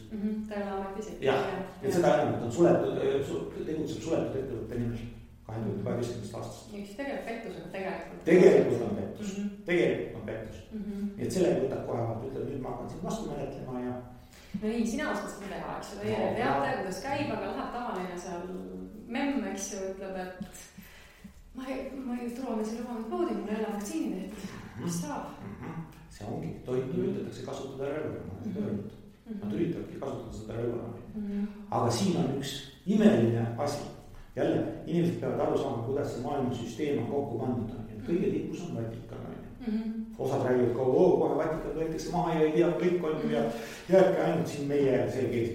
Ta ei ole ametiisik. Jah, et seda enam, et on suletud, tegutseb suletud ettevõtte nimel. 2012 aastast. Üks tegelikult pettus, aga tegelikult on pettus. Tegelikult on pettus. Nii et sellega võtab kohe vaat, ütleb, nüüd ma hakkan siin vastu menetlema ja... No nii, sina oskad seda teha, eks ju, teie teate, kuidas käib, aga läheb tavaline seal memm, eks ju, ütleb, et ma ei turvamise lubanud poodi, mul ei ole vaktsiini tehtud. Mis saab? See ongi, tohib üritatakse kasutada relva. Nad üritavadki kasutada seda relva. Aga siin on üks imeline asi. Jälle, inimesed peavad aru saama, kuidas see maailmasüsteem on kokku pandud. Kõige tipus on Vatikan. Osad räägivad kohe Vatikan võetakse maha ja ei tea kõik on ju ja jääbki ainult siin meie see kees.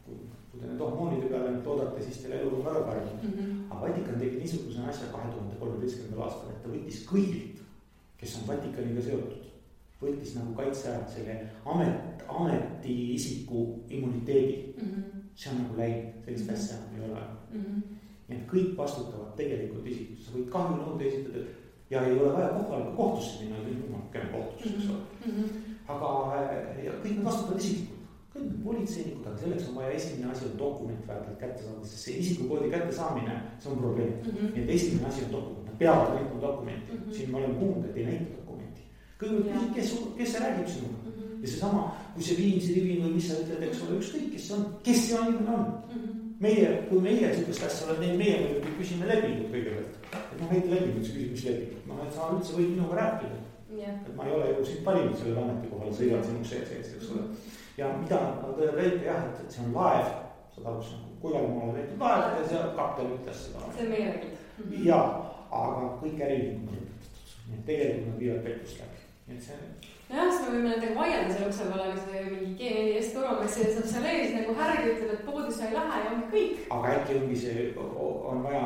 Kui te need hormoonide peale nüüd loodate, siis teil elu on väga parem. Aga Vatikan tegi niisuguse asja 2013. aastal, et ta võttis kõigilt, kes on Vatikaniga seotud, võttis nagu kaitse ära selle ametiisiku immuniteedi. See on nagu läinud, sellist asja ei ole. Ja kõik vastutavad tegelikult isikud, sa võid kahjunõude esitada ja ei ole vaja kohtusse minna, käime kohtusse, eks ole. Aga kõik need vastutavad isikud, kõik need politseinikud, aga selleks on vaja esimene asi on dokument väärtelt kätte saada, sest see isikukoodi kätte saamine, see on probleem. Nii et esimene asi on dokument, nad peavad näitama dokumenti, siin ma olen kuulnud, et ei näita dokumenti. Kõigepealt küsid, kes see räägib sinuga ja see sama, kui see Viimsi Rivi või mis sa ütled, eks ole, ükskõik, kes see inimene on. Kui meie sellist asja oleme, meie küsime lepingut kõigepealt. Et ma võite lepingut, see küsib, mis lepingut. No, et sa üldse võid minuga rääkida. Et ma ei ole ju sind valinud sellele ametikohale, sa sõidad sinuks sees, eks ole. Ja mida nad väite jah, et see on laev, saad aru, see on Kuivalmaale väitud laev ja see kaptel ütles seda. See on meie räägid. Ja, aga kõik äriühingud on lõpetatud. Nii et tegelikult nad viivad pettust läbi. Nii et see... Jah, siis me võime nendega vaielda selle ukse peale, aga see mingi G4S turvakas ja saab seal ees nagu härgi ütleb, et poodi sa ei lähe ja ongi kõik. Aga äkki ongi see, on vaja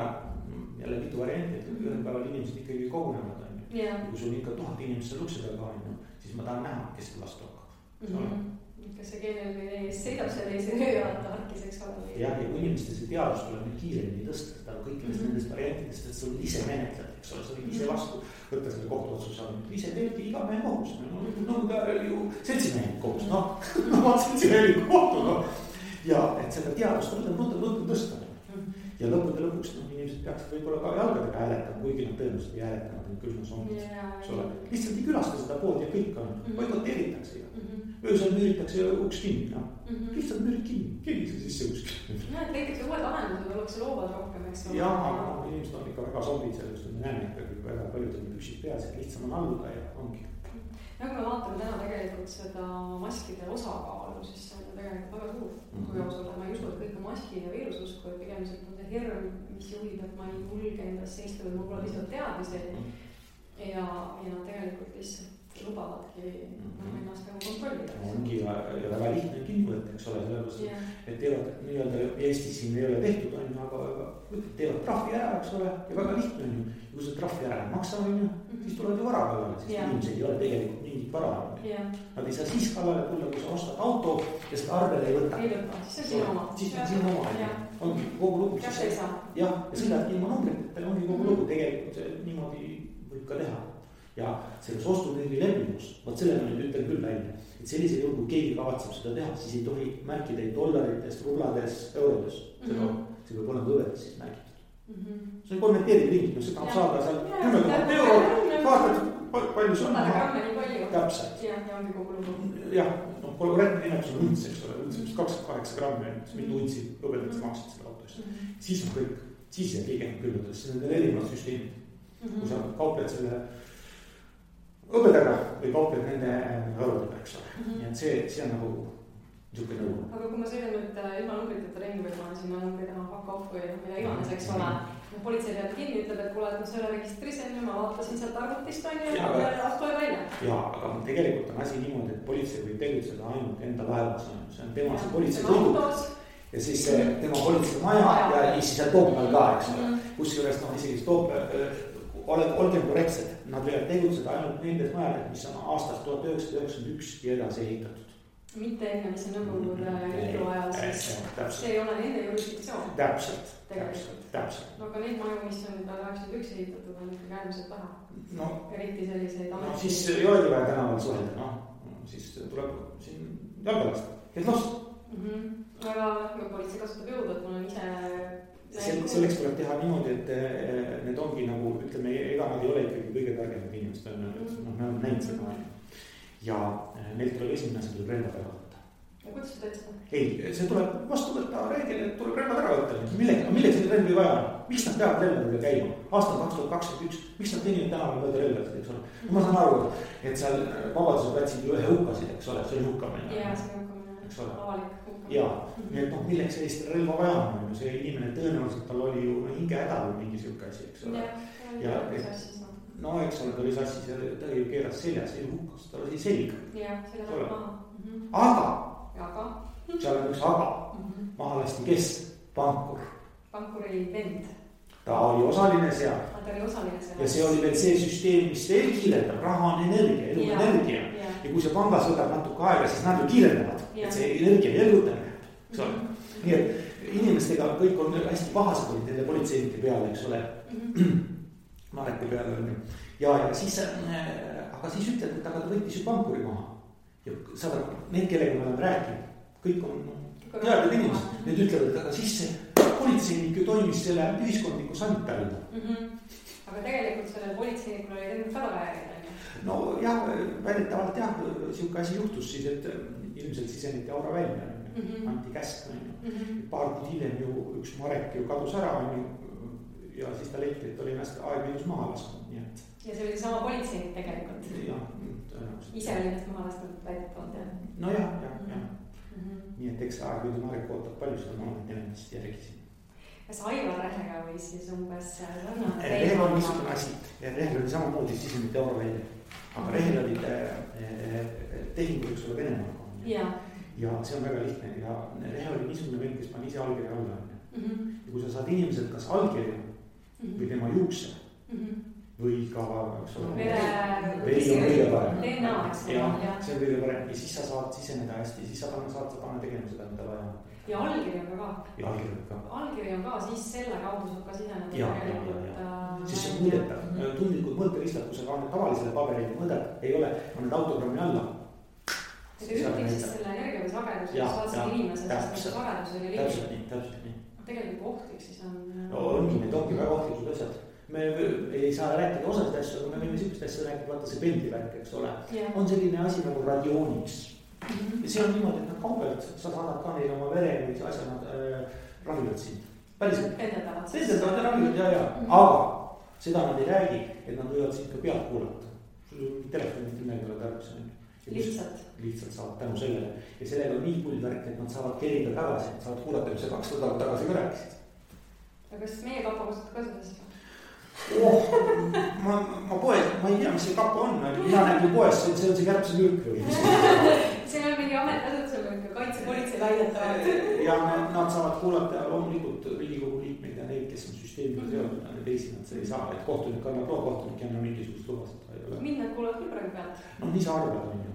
jälle mitu varianti, et ühel päeval inimesed ikkagi kogunevad. Kui sul ikka 1000 inimest seal ukse peal ka, siis ma tahan näha, kes seda vastu hakkab. Kas see G4S sõidab selle ees ja vaata harkis, eks ole? Jah, ja kui inimeste see teadus tuleb nüüd kiiremini tõsta, kõikidest nendest variantidest, et sul ise menetled. eks ole, sa võid ise vastu võtta selle kohtuotsuse, ise teebki iga mehe kohus, no ju seltsimehelik kohus, noh, seltsimehelik kohtu, noh. Ja et seda teadust on tõsta. Ja lõppude lõpuks inimesed peaksid võib-olla ka jalgadega hääletama, kuigi nad tõenäoliselt ei hääletama, et küll nad on, eks ole. Lihtsalt ei külasta seda poodi ja kõik on, boikoteeritakse ju. Öösel müüritakse uks kinni, noh. Lihtsalt müürid kinni, keegi see sisse kuskil. Et näiteks uued lahendused ollakse loovad rohkem, eks ole. Jah, aga inimesed on ikka väga zombid sellest, me näeme ikkagi väga paljud on püksid peas, et lihtsam on alluda ja ongi. Nagu me vaatame täna tegelikult seda maskide osakaalu, siis see on tegelikult väga suur. Kui ausalt, ma ei usu, et kõik on maskid ja viirususku, et pigem on see hirm, mis juhib, et ma ei julge endasse istuda, või mul pole lihtsalt teadmisi ja nad tegelikult lihtsalt lubavadki ennast nagu kontrollida. Ongi ja väga lihtne kinni võtta, eks ole, sellepärast, et teevad nii-öelda Eestis siin ei ole tehtud, aga teevad trahvi ära, eks ole, ja väga lihtne on ju. Kui see trahvi ära ei maksa, siis tulevad ju vara kallale, sest inimesed ei ole tegelikult mingit vara. Nad ei saa siis kallale tulla, kui sa ostad auto ja seda arvele ei võta. Ei võta, siis on sinu oma. Siis on sinu oma, ongi kogu lugu. Kas ei saa? Jah, ja sõidadki ilma numbriteta, ongi kogu lugu, tegelikult niimoodi võib ka teha. Ja selles ostutüügi lepingus, vaat selle ma nüüd ütlen küll välja, et sellisel juhul, kui keegi kavatseb seda teha, siis ei tohi märkida ei dollarites, rublades, eurodes. See peab olema õvedes siis märgitud. See on konverteeritud inimene, see tahab saada seal 10 000 euro, vaatad, palju see on. Täpselt. Ja ongi kogu lugu. Jah, korrektne nimetus on unts, eks ole, unts 28 grammi, mitu untsi õbedad sa maksid selle auto eest. Siis on kõik, siis jääb keegi külmutades, see on need erinevad süsteemid. Kui sa kaupled selle õbedaga või kaupled nende eurodega, eks ole. Nii et see on nagu niisugune nõu. Aga kui ma sõidan nüüd ilma numbriteta ringi või ma sinna numbrid enam fuck off või mida iganes, eks ole. Politsei peab kinni, ütleb, et kuule, et ma selle registrisen ja ma vaatasin sealt arvutist on ju ja astu välja. Jaa, aga tegelikult on asi niimoodi, et politsei võib tegutseda ainult enda laevas. See on tema see politsei sõiduk ja siis tema politsei maja ja siis seal Toompeal ka, eks ole. Kusjuures isegi olgem korrektsed, nad võivad tegutseda ainult nendes majades, mis on aastast 1991 ja edasi ehitatud. Mitte enne, mis on Nõukogude Liidu ajal, siis see ei ole nende jurisdiktsioon. Täpselt. No aga neid maju, mis on 1991 ehitatud, on ikkagi äärmiselt vähe. Eriti selliseid ametlikud. Siis ei olegi vaja tänaval suhelda, siis tuleb siin jalgalast, kes last. Aga politsei kasutab jõudu, et mul on ise selleks tuleb teha niimoodi, et need ongi nagu, ütleme, ega nad ei ole ikkagi kõige targemad inimesed, me oleme näinud seda. Ja neilt tuleb esimene asi, tuleb relvad ära võtta. Ja kuidas sa teed seda? Ei, see tuleb vastu võtta reegel, et tuleb relvad ära võtta. Milleks neid relvi vaja on? Miks nad peavad relvadega käima? Aastal 2021, miks nad teenivad tänaval mööda relvasid, eks ole? Ma saan aru, et seal Vabaduse platsil ju ühe hukkasid, eks ole, see oli hukkamine. Jaa, see on hukkamine, avalik hukkamine. Jaa, nii et milleks sellist relva vaja on? See inimene tõenäoliselt tal oli ju hinge häda või mingi siuke asi, eks ole. No eks ole, ta oli sassis ja ta ju keeras seljas, ei hukkas, ta oli selg. Jah, selja maha. Aga, seal on üks aga, maha lasti kes? Pankur. Pankuri vend. Ta oli osaline seal. Ta oli osaline seal. Ja see oli veel see süsteem, mis veel kiirendab, raha on energia, elu on energia. Ja kui see pangas võtab natuke aega, siis nad ju kiirendavad, et see energia elgutamine, eks ole. Nii et inimestega kõik on hästi pahased olid nende politseinike peale, eks ole. Mareki peale on ju. Ja siis, aga siis ütled, et aga ta võttis ju pankuri maha. Ja saad, need kellega me oleme rääkinud, kõik on teadjad inimesed. Need ütlevad, et aga siis see politseinik ju toimis selle ühiskondliku sanitärina. Aga tegelikult selle politseinikul oli tegelikult väga väärida. No jah, väidetavalt jah, siuke asi juhtus siis, et ilmselt siseniti aura välja. Anti käsk. Paar kuud hiljem ju üks Marek ju kadus ära ja siis ta leiti, et oli ennast aegviidus maha lasknud, nii et. Ja see oli sama politseinik tegelikult. Jah, tõenäoliselt. Ise oli ennast maha lasknud väidetavalt, jah. No jah. Nii et eks aegviidu Marek ootab palju seda maailmat ennast järgisin. Kas Aivar Rehega või siis umbes sarnane? Rehel on niisugune asi. Rehel oli samamoodi sisemite euro välja. Aga Rehel olid tehingud, eks ole, Venemaaga. Ja see on väga lihtne. Ja Rehel oli niisugune vend, kes pani ise allkirja alla. Ja kui sa saad inimeselt kas allkirja või tema juukse või ka, eks ole. veri on kõige parem. DNA, eks ole. See on kõige parem ja siis sa saad siseneda hästi, siis sa saad panna tegema seda, mida vaja. ja allkiri on ka. ja allkiri on ka, siis selle kaudu saab ka siseneda tegelikult. Siis see on mõõdetav, tundlikud mõõteristad, kui sa ka tavalisele paberile mõõdad, ei ole, on need autogrammi alla. ja ta ütleb siis selle energia või sageduse, kes vaatasid inimesed, sest see sagedus oli liiga. Täpselt nii. Tegelikult ohtlik siis on. No ongi, need ongi väga ohtlikud asjad. Me ei saa rääkida osast asju, aga me võime sellist asja rääkida, vaata see pendlivärk, eks ole. On selline asi nagu radiooniks. Ja see on niimoodi, et nad kaugelt, sa saadad ka neile oma vere või asja, nad ravivad sind. Päriselt. Pendeldavad ja ravivad, ja. Aga seda nad ei räägi, et nad võivad sind ka pealt kuulata. Sul on telefonid midagi ole tarvis. Lihtsalt saavad tänu sellele. Ja sellega on nii pullvärk, et nad saavad kerida tagasi, et saavad kuulata, mis sa 2 nädalat tagasi ka rääkisid. Ja kas meie kapa kasutab ka seda siis? Ma poes, ma ei tea, mis see kapa on, mina nägin poes, see on see kärbse mürk või. See on mingi ametiasutusel, kaitsepolitsei väidetavad. Ja nad saavad kuulata loomulikult Riigikogu liikmeid ja neid, kes on süsteemiga seotud, ja teisi nad see ei saa, et kohtunik annab loo, kohtunik ei anna mingisugust lubasid. Mind nad kuulavad küll praegu pealt. No nii sa arvad, on ju.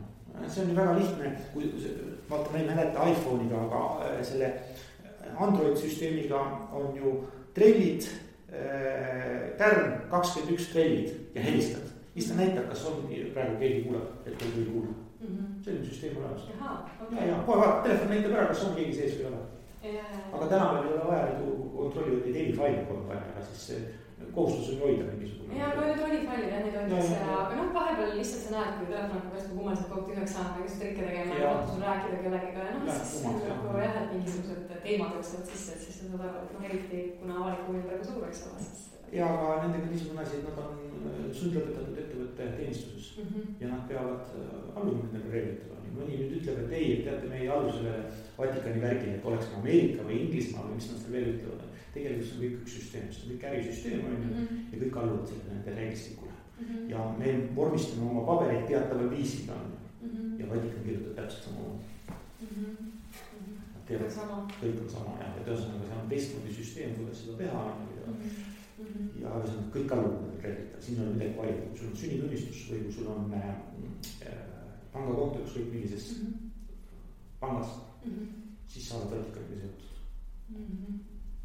See on ju väga lihtne, kui vaata, ma ei mäleta iPhone'iga, aga selle Android-süsteemiga on ju trellid, tärn, 21 trellid ja helistad. Siis ta näitab, kas on praegu keegi kuuleb, et keegi ei kuule. Selline süsteem olemas. Ja kohe vaata, telefon näitab ära, kas on keegi sees või ole. Aga tänapäeval ei ole vaja kontrollivad neid helifaile kogu aeg, aga siis kohustus on hoida mingisugune. Ja no need helifailid, neid hoitakse, aga vahepeal lihtsalt sa näed, kui telefon hakkab hästi kummaliselt kogu tühjaks saama, kes trikke tegema ja sul rääkida kellegiga ja siis nagu jah, et mingisugused teemad jooksevad sisse, et siis sa saad aru, et eriti kuna avalik huvi on praegu suur, eks ole. Ja aga nendega niisugune asi, et nad on sundlõpetatud ettevõtte teenistuses ja nad peavad alluma nendele reeglitele. Mõni nüüd ütleb, et ei, et teate, me ei allu sellele Vatikani värgile, et oleks Ameerika või Inglismaa või mis nad seal veel ütlevad. Tegelikult see on kõik üks süsteem, see on kõik ärisüsteem ja kõik alluvad selle nende reeglistikule. Ja me vormistame oma pabereid teataval viisil ja Vatikan kirjutab täpselt sama. Kõik on sama ja tõenäoliselt seal on teistmoodi süsteem, kuidas seda teha ja kõik alluvad reeglitele. Siin on midagi valida, kui sul on sünnitunnistus või kui sul on pangakonto ükskõik millises pangas, siis sa oled Vatikaniga seotud.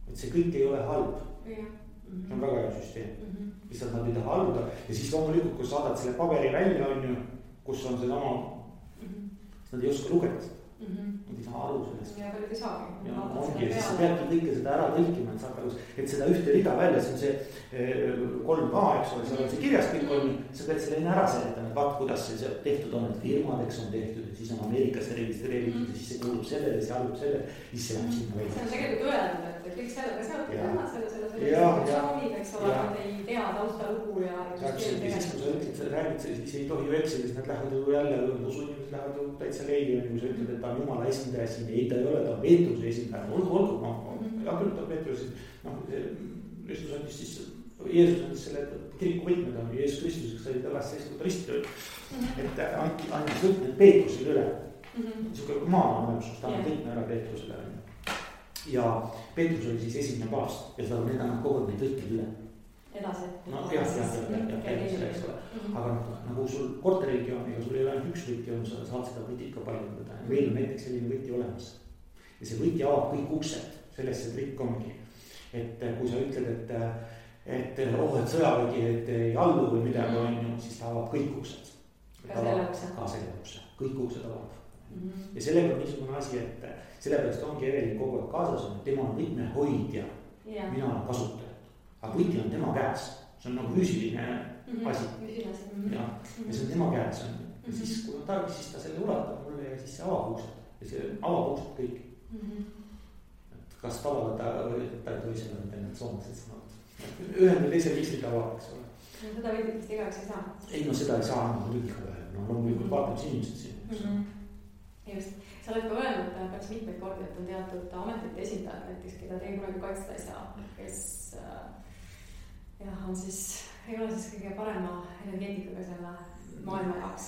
Et see kõik ei ole halb. See on väga hea süsteem. Lihtsalt nad ei taha alluda ja siis loomulikult, kui saadad selle paberi välja, on ju, kus on see oma, siis nad ei oska lugeda. Nad ei saa aru sellest. Ja paljud ei saagi. Ja ongi, ja siis sa peadki kõike seda ära tõlkima, et saad aru, et seda ühte rida välja, see on see 3A, eks ole, seal on see kirjas kõik on, sa pead selle enne ära seletama, et vaat kuidas see tehtud on, et firmadeks on tehtud, et siis on Ameerikasse registreeritud ja siis see kuulub sellele, see allub sellele, siis see läheb sinna välja. See on tegelikult öeldud, et kõik sellega seotud, nemad selle institutsioonid, eks ole, nad ei tea taustalugu ja süsteemi tegema. Siis kui sa ütled, sa räägid, siis ei tohi ju eksida, siis nad lähevad ju jälle, usuinimesed lähevad ju täitsa leili, kui sa ütled, et ta on jumala esindaja siin, ei ta ei ole, ta on Peetruse esindaja, olgu, ja küll ta on Peetruse, Kristus andis siis, Jeesus andis selle kiriku võtmed on Jeesus Kristuseks, sai ta lasta istuda ristil, et andis võtmed Peetrusele üle, niisugune maa on olemus, ta on võtme ära Peetrusele ja Peetrus oli siis esimene paavst ja seda on need kogu neid võtmed üle. Edasi. No jah, eks ole. Aga nagu sul korteriregiooniga, sul ei ole ainult üks võti on, sa saad seda võtit ka paljendada. Meil on näiteks selline võti olemas. Ja see võti avab kõik uksed, sellest see trikk ongi. Et kui sa ütled, et sõjavägi, et ei allu või midagi on ju, siis ta avab kõik uksed. Ka selle ukse. Ka selle ukse. Kõik uksed avab. Ja sellega on niisugune asi, et sellepärast ongi Evelin kogu aeg kaasas on, et tema on võtmehoidja. Mina olen kasutaja. Aga võti on tema käes, see on nagu füüsiline asi. Ja see on tema käes. Ja siis kui on tarvis, siis ta selle ulatab mulle ja siis see avab uksed. Ja see avab uksed kõik. Et kas tavalda ta ei tohi selle need soomlased sõnavad. Ühel või teisel viisil ta avab, eks ole. Seda võtitest igaks ei saa? Ei, no seda ei saa anda muidugi ka ühel. No loomulikult vaatab see inimesed siin. Just. Sa oled ka öelnud päris mitmeid kordi, et on teatud ametite esindajad näiteks, keda teie kunagi kaitsta ei saa, kes on siis, ei ole siis kõige parema energeetikaga selle maailma jaoks.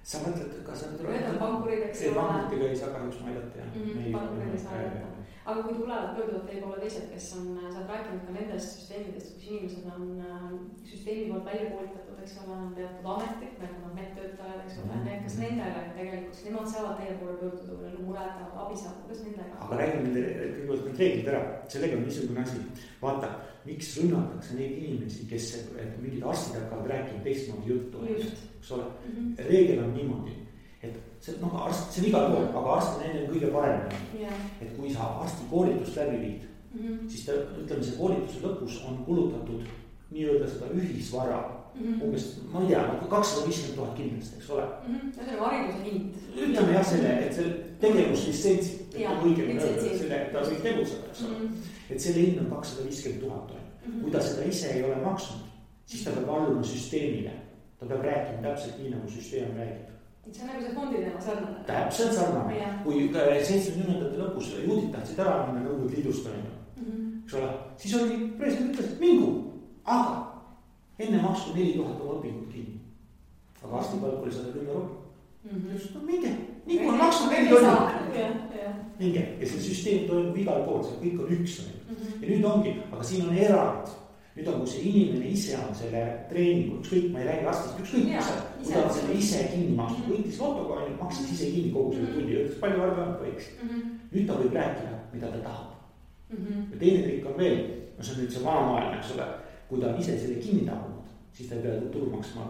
Sa mõtled, kas need on pankurid, eks ole. Pankuriga ei saa kahjuks ma aidata, jah. Pankurid ei saa aidata. aga kui tulevad, pöörduvad teie poole teised, kes on, sa oled rääkinud ka nendest süsteemidest, kus inimesed on süsteemi poolt välja koolitatud, eks ole, on teatud ametid, nagu nad medtöötajad, eks ole, kas nendele tegelikult, nemad saavad teie poole pöörduda või mureda, abi saada, kuidas nendega? aga räägime kõigepealt need reeglid ära, sellega on niisugune asi, vaata, miks rünnatakse neid inimesi, kes mingid arstid hakkavad rääkima teistmoodi juttu, eks ole, reegel on niimoodi, et see on igal pool, aga arst on enne kõige parem. Et kui sa arsti koolitust läbi viid, siis ta, ütleme, see koolituse lõpus on kulutatud nii-öelda seda ühisvara, umbes, ma ei tea, 250 000 kindlasti, eks ole. See on hariduse hind. Ütleme jah selle, et see tegevuslitsents, selle, et ta võib tegutseda, eks ole. Et selle hind on 250 000. Kui ta seda ise ei ole maksnud, siis ta peab alluma süsteemile. Ta peab rääkima täpselt nii, nagu süsteem räägib. See on nagu see fondi teema sarnane. Täpselt sarnane. Kui 70. lõpus juudid tahtsid ära minna Nõukogude Liidust, eks ole, siis oli president ütles, et mingu, aga enne maksu 4000 oma õpingut kinni. Aga arstipalk oli 110 €. No minge, nii kui on maksu 4000. Minge, ja see süsteem toimub igal pool, see kõik on üks. Ja nüüd ongi, aga siin on erand. Nüüd on, kui see inimene ise on selle treeningu, ükskõik, ma ei räägi arstist, ükskõik, kui ta on selle ise kinni maksnud, võitis lotoga, maksis ise kinni kogu selle tulli, ütles palju arve võiks. Nüüd ta võib rääkida, mida ta tahab. Ja teine trikk on veel, see on nüüd see vanamaailm, eks ole, kui ta on ise selle kinni tahunud, siis ta ei pea tulu maksma.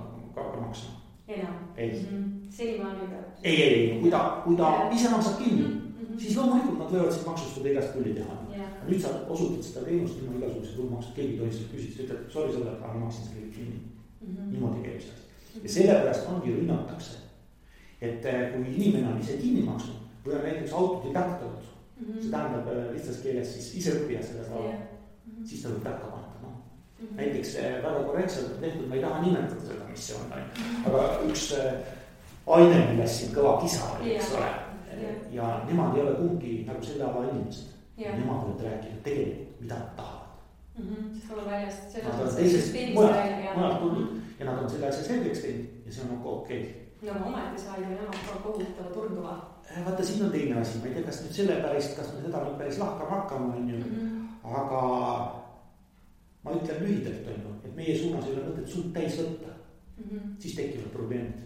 Enam? Ei. Senimaani peab? Ei, kui ta ise maksab kinni, siis loomulikult nad võivad siis maksustada igast tulli teha. Nüüd sa osutad seda teenust ilma igasuguse tulumaksud, keegi tohi seda küsida, sa ütled, sorry sõber, aga ma maksin selle kinni. Niimoodi käib see asi. Ja sellepärast ongi rünnatakse, et kui inimene on ise kinni maksnud või on näiteks autodidakt olnud, see tähendab lihtsas keeles siis ise õppija selles ala, siis ta võib takka panna. Näiteks väga korrektselt tehtud, ma ei taha nimetada seda, mis see on, aga üks aine, milles siin kõva kisa oli, eks ole, ja nemad ei ole kumbki nagu selle ala inimesed. Nemad võivad rääkida tegelikult, mida nad tahavad. Sest olla väljast, nad on teisest mujalt tulnud ja nad on selle asja selgeks teinud ja see on nagu okei. No ometi sai ju nemad ka kohutava turduva. Vaata, siin on teine asi, ma ei tea, kas nüüd selle päris, kas me seda nüüd päris lahkama hakkama, aga ma ütlen lühidalt, et meie suunas ei ole mõtet suud täis võtta, siis tekivad probleemid.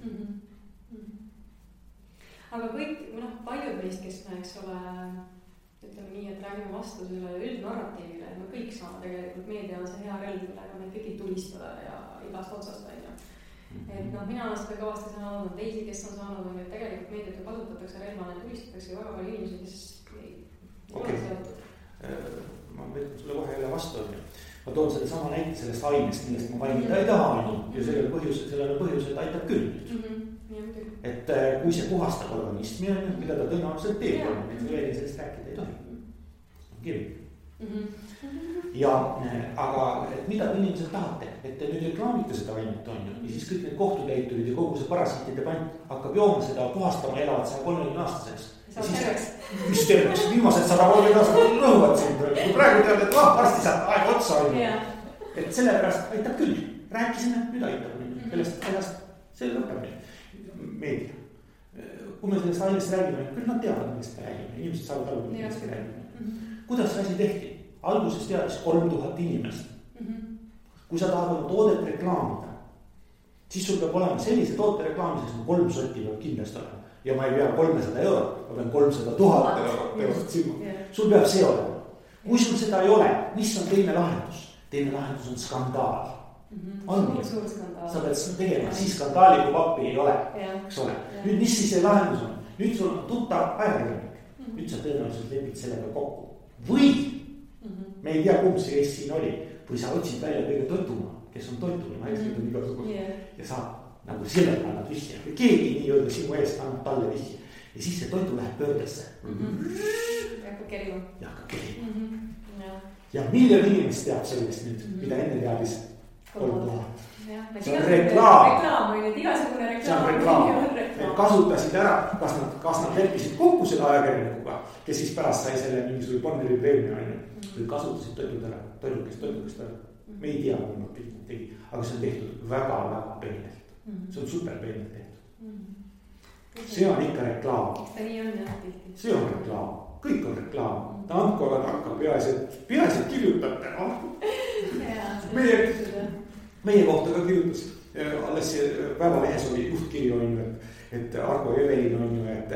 Aga kõik, paljud meist, kes me, eks ole, ütleme nii, et räägime vastu selle üldnarratiivile, et me kõik saame tegelikult, meedia on see hea relv, millega me kõiki tulistada ja igast otsast välja. Et mina olen seda kõvasti saanud, on teisi, kes on saanud, et tegelikult meediat ju kasutatakse relvana ja tulistatakse väga palju inimesi, kes ei ole seotud. Ma võtan sulle kohe jälle vastu. Ma toon selle sama näite sellest ainest, millest ma mainida ei taha, ja sellele põhjus, et aitab küll. Et kui see puhastab organismi, mida ta tõenäoliselt teeb, et veel sellest rääkida ei tohi. Kirju. Ja, aga et mida te inimesed tahate, et te nüüd reklaamite seda ainet on ju, ja siis kõik need kohtutäiturid ja kogu see parasiitide pant hakkab jooma seda puhastama, elavad 130 aastaseks. Mis terveks, viimased 130 aastat rõhuvad sind, kui praegu tead, et varsti saab aeg otsa on. Et sellepärast aitab küll, rääkisime, nüüd aitab, sellest ajast see lõpeb meedia. Kui me sellest ainest räägime, küll nad teavad, millest me räägime, inimesed saavad aru, millest me räägime. Kuidas see asi tehti? Alguses teadis 3000 inimest. Kui sa tahad oma toodet reklaamida, siis sul peab olema sellise toote reklaamiseks, 3 sotti peab kindlasti olema. Ja ma ei pea 300 €, ma pean 300 000 €. Sul peab see olema. Kui sul seda ei ole, mis on teine lahendus? Teine lahendus on skandaal. Suur skandaal. Sa pead tegema, siis skandaali kui pappi ei ole, eks ole. Nüüd mis siis see lahendus on? Nüüd sul on tuttav ajakirjanik. Nüüd sa tõenäoliselt lepid sellega kokku. Või me ei tea, kumb see Eest siin oli. Või sa otsid välja kõige toituma, kes on toituma, naised on igasugused. Ja saab nagu sellele annad vihje. Keegi nii-öelda sinu eest annab talle vihje. Ja siis see toitu läheb pöördesse. Ja hakkab kerima. Ja hakkab kerima. Ja miljon inimest teab sellest nüüd, mida enne teadis 3000. See on reklaam. See on reklaam. Need kasutasid ära, kas nad leppisid kokku selle ajakirjanikuga, kes siis pärast sai selle mingisugune Bonneri preemia või kasutasid toidukest ära. Me ei tea, kui nad kõik tegi, aga see on tehtud väga-väga peenelt. See on super peenelt tehtud. see on ikka reklaam. eks ta nii on jah tihti. see on reklaam, kõik on reklaam. ta andku aga takka, peaasi, et kirjutate, meie kohta ka kirjutas. Alles Päevalehes oli juhtkiri on ju, et Argo Evelin on ju, et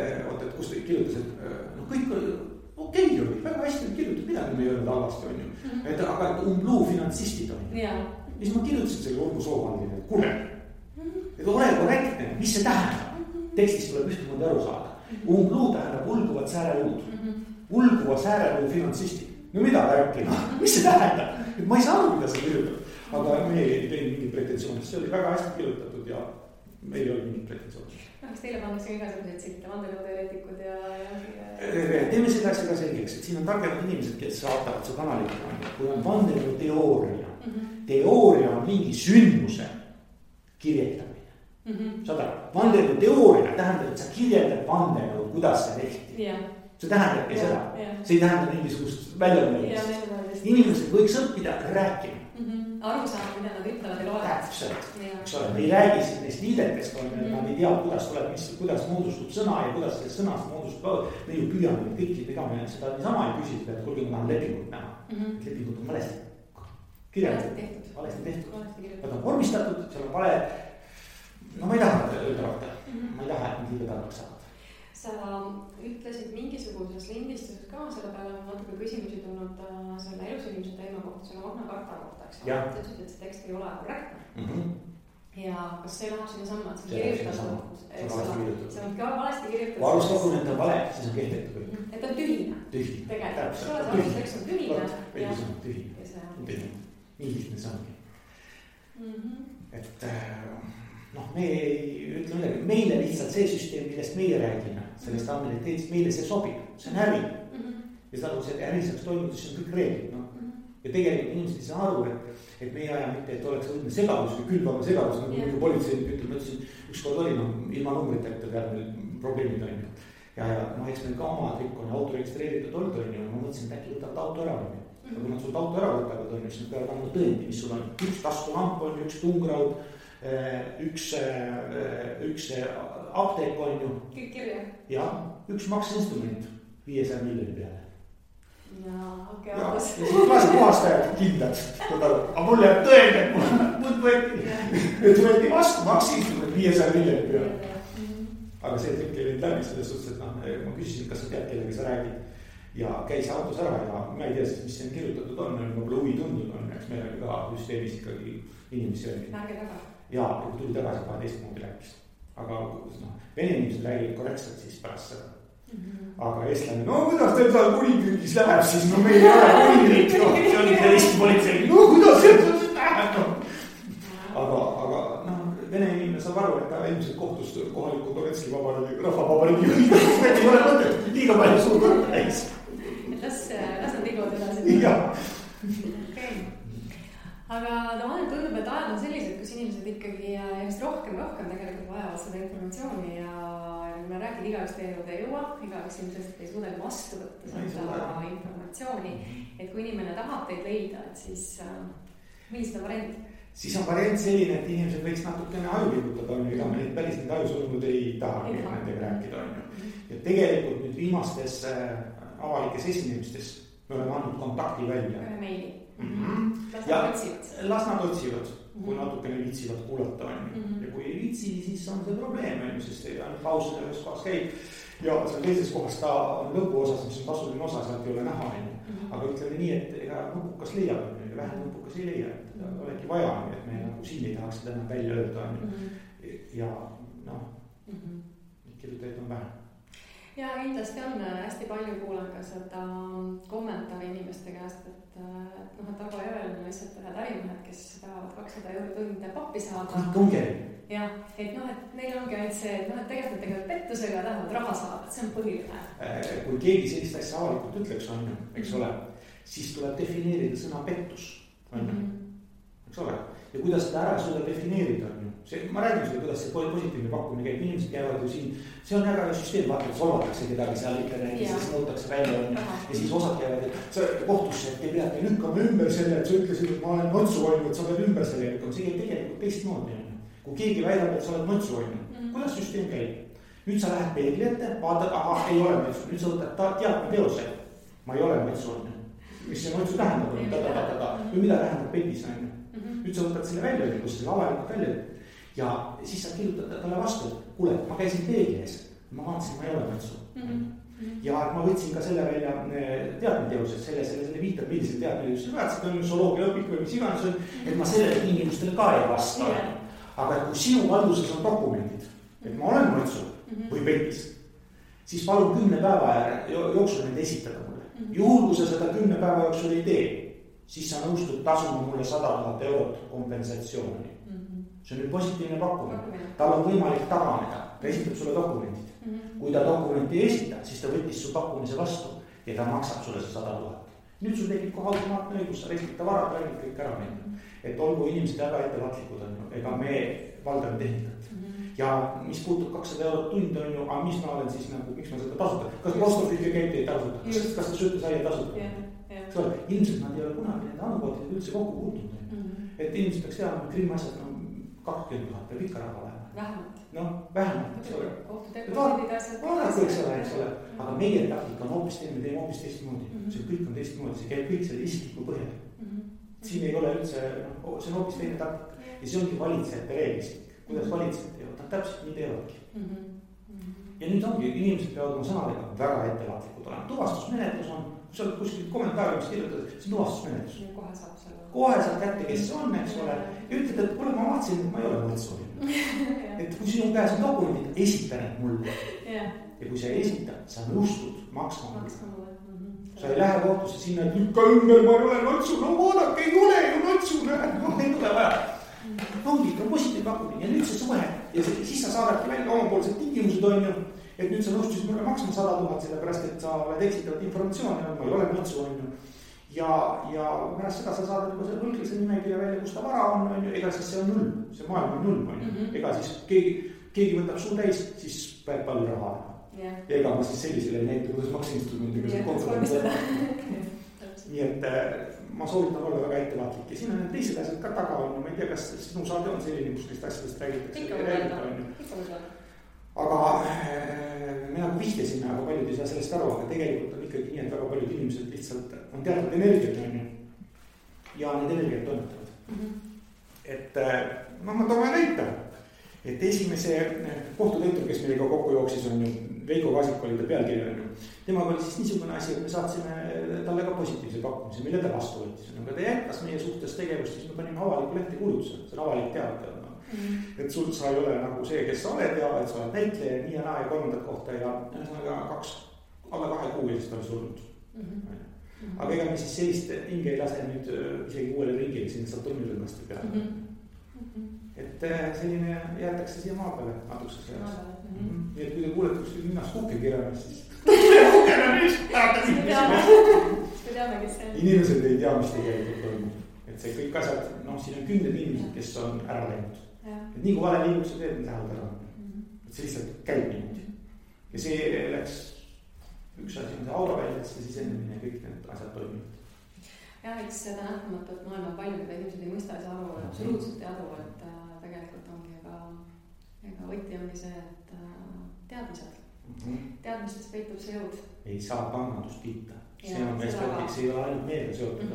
kus ta kirjutas, et no kõik okei oli, väga hästi kirjutatud, midagi me ei öelnud halvasti on ju. Aga et umbluu finantsistid on ju. Ja siis ma kirjutasin selle Urmo Soovaldile, et kuule, et ole korrektne, mis see tähendab? Tekstist tuleb ühtemoodi aru saada. Umbluu tähendab ulguvad sääreluud. Ulguvad sääreluud finantsistid. No mida rääkima? Mis see tähendab? Et ma ei saa aru, mida sa kirjutab. Aga me ei teinud mingit pretensioonist, see oli väga hästi kirjutatud ja meil ei olnud mingit pretensioonist. Kas teile pannakse igasugused sitte, vandenõuteoreetikud ja... Teeme seda asja ka selgeks, et siin on targemad inimesed, kes saatavad see kanalit. Kui on vandenõuteooria, teooria on mingi sündmuse kirjeldamine. Saad aru, vandenõuteooria tähendab, et sa kirjeldad vandenõu, kuidas see tehti. See tähendabki seda, see ei tähenda mingisugust väljamõelist. Inimesed võiks õppida rääkima. Aru saada, mida nad ütlevad ja loevad. Täpselt, eks ole, me ei räägi siin neist liidetest, nad ei tea, kuidas moodustub sõna ja kuidas sellest sõnast moodustub. Me ju püüame kõiki, ega me seda niisama ei küsitud, et kuulge, ma tahan lepingut näha. Lepingut on valesti kirjeldatud, valesti tehtud. Nad on vormistatud, seal on vale. No ma ei taha öelda rahta, ma ei taha, et nad liiga targaks saavad. Sa ütlesid mingisuguses lindistuses ka, selle peale on natuke küsimusi tulnud selle elusinimese teema kohta, selle Magna Carta kohta, eks ole. Sa ütlesid, et see tekst ei ole korrektne. Ja kas see läheb sinna samma, et see on kirjutatud? See on ka valesti kirjutatud. Kui alusdokument on vale, siis on kehtetu kõik. Et on tühine. Tühine. Tegelikult. See alustekst on tühine. Õigus on tühine. Nii lihtne see ongi. Et noh, me ei ütle midagi, meile lihtsalt see süsteem, millest meie räägime, sellest ammeniteetist, meile see sobib, see on äri. Ja seda, kui see äri saaks toimuda, siis on kõik reeglid. Ja tegelikult inimesed ei saa aru, et meie aja mitte, et oleks õudne segadus või külvama segadus, nagu politseinik ütleb, ma ütlesin, ükskord oli ilma numbriteta peal meil probleemid on ju. Ja eks meil ka oma trikk on auto registreeritud olnud on ju, ma mõtlesin, et äkki võtavad auto ära on ju. Ja kui nad sult auto ära võtavad on ju, siis nad peavad andma tõendi, mis sul on üks taskulamp on ju, üks tungraud, üks apteek on ju. Kõik kirja. Ja üks makseinstrument 500 miljoni peale. Ja okei, ja siis klaasi puhastajad kindlad. Aga mul jääb tõend, et mul võeti vastu makseinstrument 500 miljoni peale. Aga see trikk ei läbi selles suhtes, et ma küsisin, kas sa tead, kellega sa räägid. Ja käis autos ära ja ma ei tea siis, mis siin kirjutatud on, võib-olla huvi tundnud on, eks meil oli ka süsteemis ikkagi inimesi öeldi. Närge taga. Ja kui tuli tagasi 12 moodi rääkis. Aga vene inimesed räägivad korrektselt siis pärast seda. Aga eestlane, no kuidas teil seal kuningriigis läheb, siis no meil ei ole kuningriik, see oli see Eesti politsei, no kuidas see läheb, aga vene inimene saab aru, et ta ilmselt kohtus kohaliku Donetski rahvavabariigi ei ole mõtet, liiga palju suur kõrg täis. Las nad liiguvad edasi. Jah. Aga mulle tundub, et ajad on sellised, kus inimesed ikkagi just rohkem tegelikult vajavad seda informatsiooni ja kui me räägime, igaüks teie juurde ei jõua, igaüks ilmselt ei suuda vastu võtta seda informatsiooni, et kui inimene tahab teid leida, et siis millised on variant? Siis on variant selline, et inimesed võiks natukene aju liigutada, ega me neid päris need ajusolumud ei taha nendega rääkida. Ja tegelikult nüüd viimastes avalikes esinemistes me oleme andnud kontakti välja. Ühe meili. Las nad otsivad, kui natukene viitsivad kuulata on. Ja kui ei viitsi, siis on see probleem, sest paus ühes kohas käib ja seal teises kohas ta on lõpuosas, mis on tasuline osa, sealt ei ole näha. Aga ütleme nii, et ega nupukas leiab, vähem nupukas ei leia, et olegi vaja, et me nagu siin ei tahaks seda enam välja öelda. Ja kirjutajaid on vähem. Ja kindlasti on hästi palju kuulan ka seda kommentaari inimeste käest, et Argo Evelin on lihtsalt ühed ärimehed, kes tahavad 200 € tunde pappi saada. Ja, et neil ongi ainult see, et tegelikult pettusega tahavad raha saada, et see on põhiline. Kui keegi sellist asja avalikult ütleks on, eks ole, siis tuleb defineerida sõna pettus, eks ole. Ja kuidas seda ära suuda defineerida on ju. Ma räägin sulle, kuidas see positiivne pakkumine käib, inimesed käivad ju siin, see on väga süsteem, vaata, et solvatakse kedagi seal ikka räägis, siis nõutakse välja on ja siis osad käivad, et kohtusse, et te peate lükkama ümber selle, et sa ütlesid, et ma olen notsu hoidnud, et sa pead ümber selle lükkama, see käib tegelikult teistmoodi. Kui keegi väidab, et sa oled notsu hoidnud, kuidas süsteem käib? nüüd sa lähed peegli ette, vaatad, aha, ei ole mõtsu, nüüd sa võtad teadmeteose. Ma ei ole mõtsu, mis see mõtsu tähendab, või mida tähendab petis, nüüd sa võtad selle välja, kui sa selle avalikult välja ja siis sa kirjutad talle vastu, et kuule, ma käisin peegli ees, ma vaatasin, ma ei ole mõtsu. Ja ma võtsin ka selle välja teadmeteosed, selle viitab, millisel teadmeteosed väärtsid on, zooloogia õpik või mis iganes on, et ma sellele tingimustele ka ei vasta. Aga kui sinu valduses on dokumendid, et ma olen mõtsu või petis, siis palun 10 päeva jooksul neid esitada mulle. Juhul, kui sa seda 10 päeva jooksul ei tee, siis sa nõustud tasuma mulle 100 000 eurot kompensatsiooni. See on nüüd positiivne pakkumine. Tal on võimalik taganeda, ta esitab sulle dokumendid. Kui ta dokumenti ei esita, siis ta võttis su pakkumise vastu ja ta maksab sulle see 100 000. Nüüd sul tekib kohe automaatne õigus, sa restita varad välja kõik ära minna. Et olgu inimesed väga ettevaatlikud on, ega me valdame tehnikat. Ja mis puutub 200 eurot tund on ju, aga mis ma olen siis nagu, miks ma seda tasuta? Kas Postofilge käib teid tasuta? Kas ta sööte saia tasuta? Ilmselt nad ei ole kunagi nende andmekoodid üldse kokku puutunud. Et inimesed peaks teadma, et Krimmi asjad 20 000 peab ikka raha olema. Vähemalt. Noh, vähemalt, eks ole. Vaadake, eks ole. Aga meie taktika on hoopis teine, me teeme hoopis teistmoodi. See kõik on teistmoodi, see käib kõik selle isikliku põhjal. Siin ei ole üldse, see on hoopis teine taktika. Ja see ongi valitsejate reeglistik. Kuidas valitsejad teevad, nad täpselt nii teevadki. Ja nüüd ongi, inimesed peavad oma sõnadega väga ettevaatlikud olema. Tuvastusmenetlus on, kui sa oled kuskil kommentaariumis kirjutad, see on tuvastusmenetlus. Kohe saab kätte, kes see on, eks ole. Ja ütled, et kuule, ma vaatasin, et ma ei ole mõtsu. Et kui sinu käes on dokumendid, esita need mulle. Ja kui sa ei esita, sa nõustud maksma mulle. Sa ei lähe kohtusse sinna, et lükka ümber, ma ei ole mõtsu. No vaadake, ei ole ju mõtsu, ei tule vaja. Ongi ka positiivne pakkumine ja nüüd see suhe ja siis sa saadadki välja omapoolsed tingimused on ju, et nüüd sa nõustusid mulle maksma 100 000 sellepärast, et sa oled eksitavat informatsiooni, ma ei ole mõtsu on ju. Ja pärast seda sa saadad juba selle võlglise nimekirja välja, kus ta vara on ju, ega siis see on null, see maailm on null on ju. Ega siis keegi võtab suu täis, siis peab palju raha. Ja ega ma siis sellisele ei näita, kuidas maksinstrumentiga see konsulent. Nii et ma soovitan olla väga ettevaatlik ja siin on need teised asjad ka taga on, ma ei tea, kas sinu saade on selline, kus neist asjadest räägitakse. Aga me nagu vihjasime, aga paljud ei saa sellest aru, aga tegelikult on ikkagi nii, et väga paljud inimesed lihtsalt on teatud energiat on ju ja need energiat toimetavad. Et ma toome näita, et esimese kohtutäitur, kes meiega kokku jooksis on ju, Veiko Kaasik oli ta pealkirja on ju. Temaga oli siis niisugune asi, et me saatsime talle ka positiivse pakkumise, mille ta vastu võttis. Aga ta jätkas meie suhtes tegevust, siis me panime avaliku lehti kuulutuse, see on avalik teada. Et sul sa ei ole nagu see, kes sa oled ja et sa oled näitleja nii ja naa ja kolmandat kohta ja alla 2 kuu eest oli surnud. Aga ega me siis sellist hinge ei lase nüüd isegi uuele ringile sinna Saturnirõnnasti peale. Et selline jäetakse siia maa peale natukese ajaks. Nii et kui te kuulete kuskil minnas kukke kirjamas, siis inimesed ei tea, mis tegelikult toimub. Et see kõik asjad, siin on 10 inimesed, kes on ära läinud. Et nii kui vale liigus sa teed, lähevad ära. Et see lihtsalt käib niimoodi. Ja see läks üks asi on see auraväljadesse sisenemine ja kõik need asjad toimivad. Ja eks seda nähtamatut maailma palju, mida inimesed ei mõista ja aru, absoluutselt ei adu, et tegelikult ongi ega võti ongi see, et teadmised. Teadmistes peitub see jõud. Ei saa pangandust kiita. See on meestöötik, see ei ole ainult meelega seotud.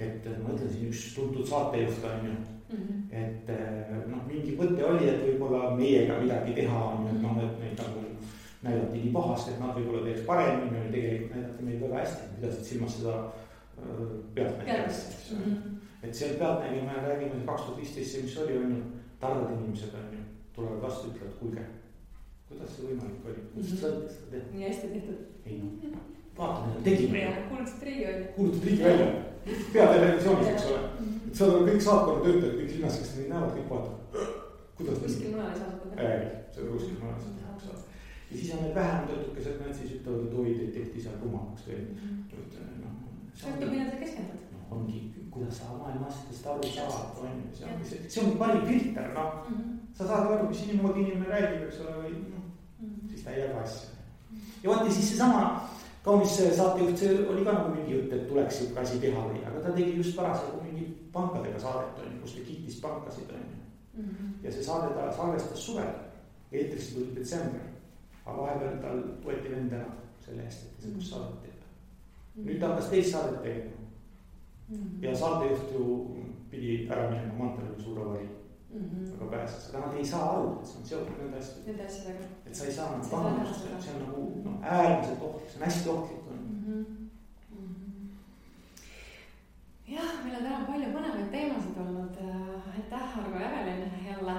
Et ma ütlesin üks tuntud saatejuht on ju, et mingi mõte oli, et võib-olla meiega midagi teha on, et neid nagu näidati nii pahast, et nad võib-olla teeks paremini, või tegelikult näidati meid väga hästi, pidasid silmas seda pealtnägijast. Et seal pealtnägija me räägime 2015, mis oli on ju, targad inimesed on ju, tulevad vastu, ütlevad, kuulge, kuidas see võimalik oli, kuidas sa õnnes seda teha? Nii hästi tehtud. Ei vaata, tegime. Kuulutad riigi välja. Peatelevisioonis, eks ole. Et seal on kõik saatkonna töötajad, kõik linnas, kes neid näevad, kõik vaatavad. Kuidas kuskil mujal ei saanud teha? Ei, seda kuskil mujal ei saanud. Ja siis on need vähem töötukesed, need siis ütlevad, et oi, teid tehti seal rumamaks või. Sõltub, mida sa keskendad. Ongi, kuidas sa maailma asjadest aru saad. See on parim filter, Sa saad aru, mis inimene räägib, eks ole, või siis ta ei jaga asja. Ja vaat ja siis seesama kaunis saatejuht, see oli ka nagu mingi jutt, et tuleks siuke asi teha või, aga ta tegi just parasjagu mingi pankadega saadet, kus ta kiitis pankasid. Ja see saade ta salvestas suvel, eetrisse tuli detsember. aga vahepeal tal võeti vend ära selle eest, et niisugust saadet teeb. Nüüd ta hakkas teist saadet tegema. Ja saatejuht ju pidi ära minema, Mantel oli suur avarii, aga pääses. Aga nad ei saa aru, et see on seotud nende asjadega. Et sa ei saa nagu pahandust, et see on nagu äärmiselt ohtlik, see on hästi ohtlik. Jah, meil on täna palju põnevaid teemasid olnud. Aitäh, Argo ja Evelin jälle.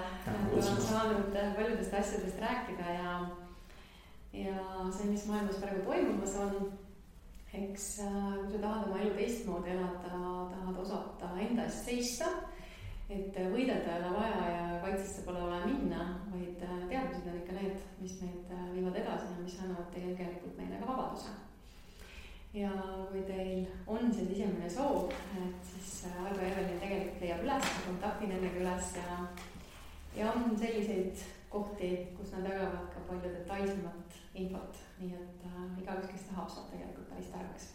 Olen saanud paljudest asjadest rääkida ja see, mis maailmas praegu toimumas on. Eks kui sa tahad oma elu teistmoodi elada, tahad osata enda eest seista, et võidelda ei ole vaja ja kaitsesse pole vaja minna, vaid teadmised on ikka need, mis meid viivad edasi ja mis annavad tegelikult meile ka vabaduse. Ja kui teil on see sisemine soov, et siis Argo ja Evelin tegelikult leiab üles, kontakti nendega üles ja on selliseid kohti, kus nad jagavad ka palju detailsemat infot, nii et igaüks, kes tahab, saab tegelikult päris targaks.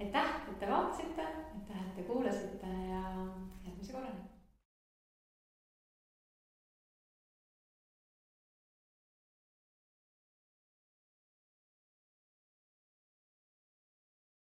Aitäh, et te vaatasite, aitäh, et te kuulasite ja järgmise korrani.